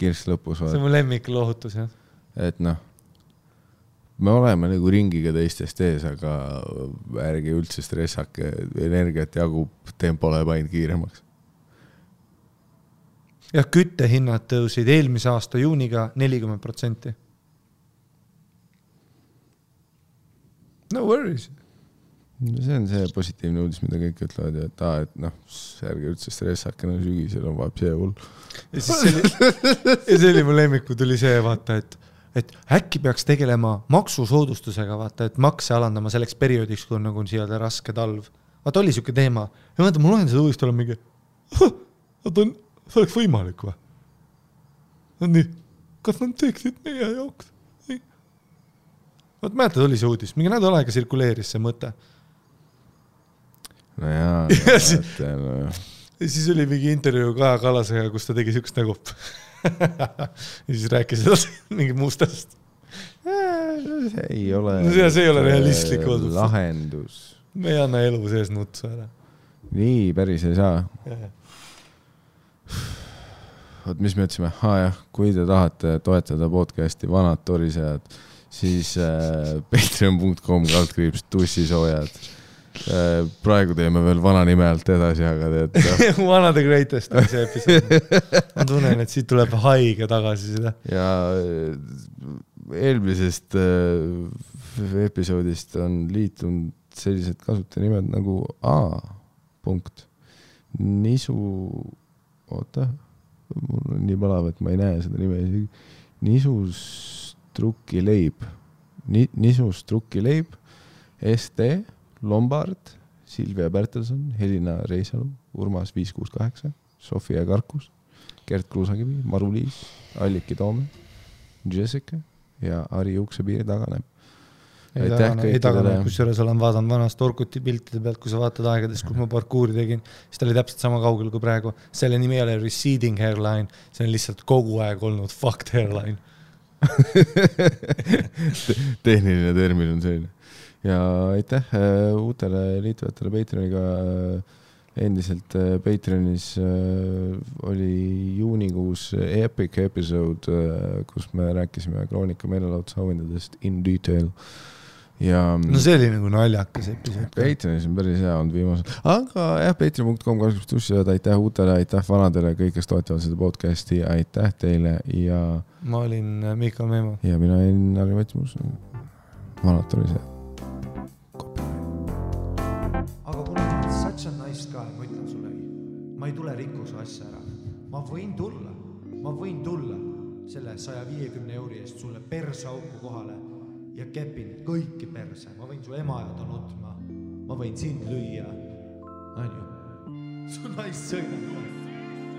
Kirss lõpus. See on mu lemmik lohutus, jah. Et me oleme nagu ringiga teistest ees, aga ärge üldse stressake, energiat jagub, tempo läheb ainult kiiremaks. Ja küttehinnad tõusid eelmise aasta juuniga 40%. No worries. See on see positiivne uudis, mida kõik ütlevad, et ärge üldse stressake, sügisel on vaeb see hull. Ja see oli mu lemmiku, tuli see vaata, et äkki peaks tegelema maksusoodustusega, vaata, et makse alandama selleks perioodiks, kui on nagu siia raske talv. Vaata, oli siuke teema. Ja vaata, mul lohen seda uudist olla mingi, see oleks võimalik või? Nii, kas nad teeksid meie jaoks? Vaat mäletad, oli see uudis. Mingi nädal aega sirkuleeris see mõte. No jaa. Ja siis oli mingi intervjuu Kaja Kallasega, kus ta tegi siukest nagu. Ja siis rääkis mingi muustast. See ei ole... See ei ole realistlik odus. Lahendus. Me ei anna elu sees nutsu ära. Nii, päris ei saa. Oot, mis me ütlesime? Kui te tahate toetada podcasti Vanad torisejad, siis patreon.com /tussisoojad. Praegu teeme veel vana nime alt edasi, aga teed. One of the greatest on see episood. Ma tunnen, et siit tuleb haige tagasi seda. Ja eelmisest episoodist on liitunud sellised kasutajanimad nagu Nisu, oota, mul on nii palav, et ma ei näe seda nime. Nisus Trukkileib, ST, Lombard, Silvia Bertelson, Helina Reisalu, Urmas 568, Sofia Karkus, Gert Kruusakivi, Maru-Liis, Alliki Toome, Jessica ja Ari Uksepiiri taganeb. Ei tagane, kus juures olen vaadanud vanast Orkuti piltide pealt, kui sa vaatad aegades, kus ma parkuuri tegin, siis ta oli täpselt sama kaugel kui praegu. Selle nimi ei ole receding hairline, see on lihtsalt kogu aeg olnud fucked hairline. Tehniline termin on selline. Ja aitäh uutele liitujatele Patreoniga. Endiselt Patreonis oli juunikuus epic episode, kus me rääkisime Kroonika meelelaudsauhindadest in detail. ja no see oli nagu naljakas episood. Patreonis on päris hea olnud viimasel, aga jah, patreon.com/tussi, aitäh uutele, aitäh vanadele, kõik, kes toetavad seda podcasti, aitäh teile ja ma olin Miikal Meemo ja mina olin Harri Metsmus, vanad oli see. aga kuna such a nice guy, ma ütlen sulle, ma ei tule rikkuse asja ära, ma võin tulla selle 150 euri eest sulle persauku kohale ja kepin kõiki perse, ma võin su ema ja ta nutma, ma võin sind lüüa, on ju, su naist sõidab,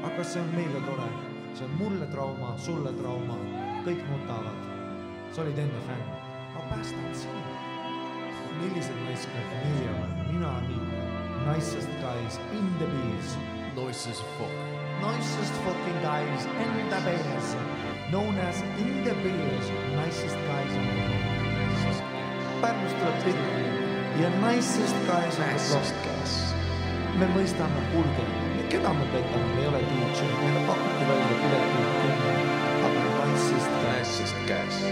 aga see on meile tore, see on mulle trauma, sulle trauma, kõik nutavad, sa olid enne fänn, ma päästan sinu, millised naiskad nii on, mina nii, nicest guys in the bees, nicest fucking guys in the bees, known as in the bees, nicest guys in the bees. Pärnust tuleb pilli ja nicest guys on the block. Me mõistame, kuulge, keda me petame, me ei ole DJ, meile pakuti välja piletit, aga nicest guys.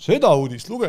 Seda uudist luge.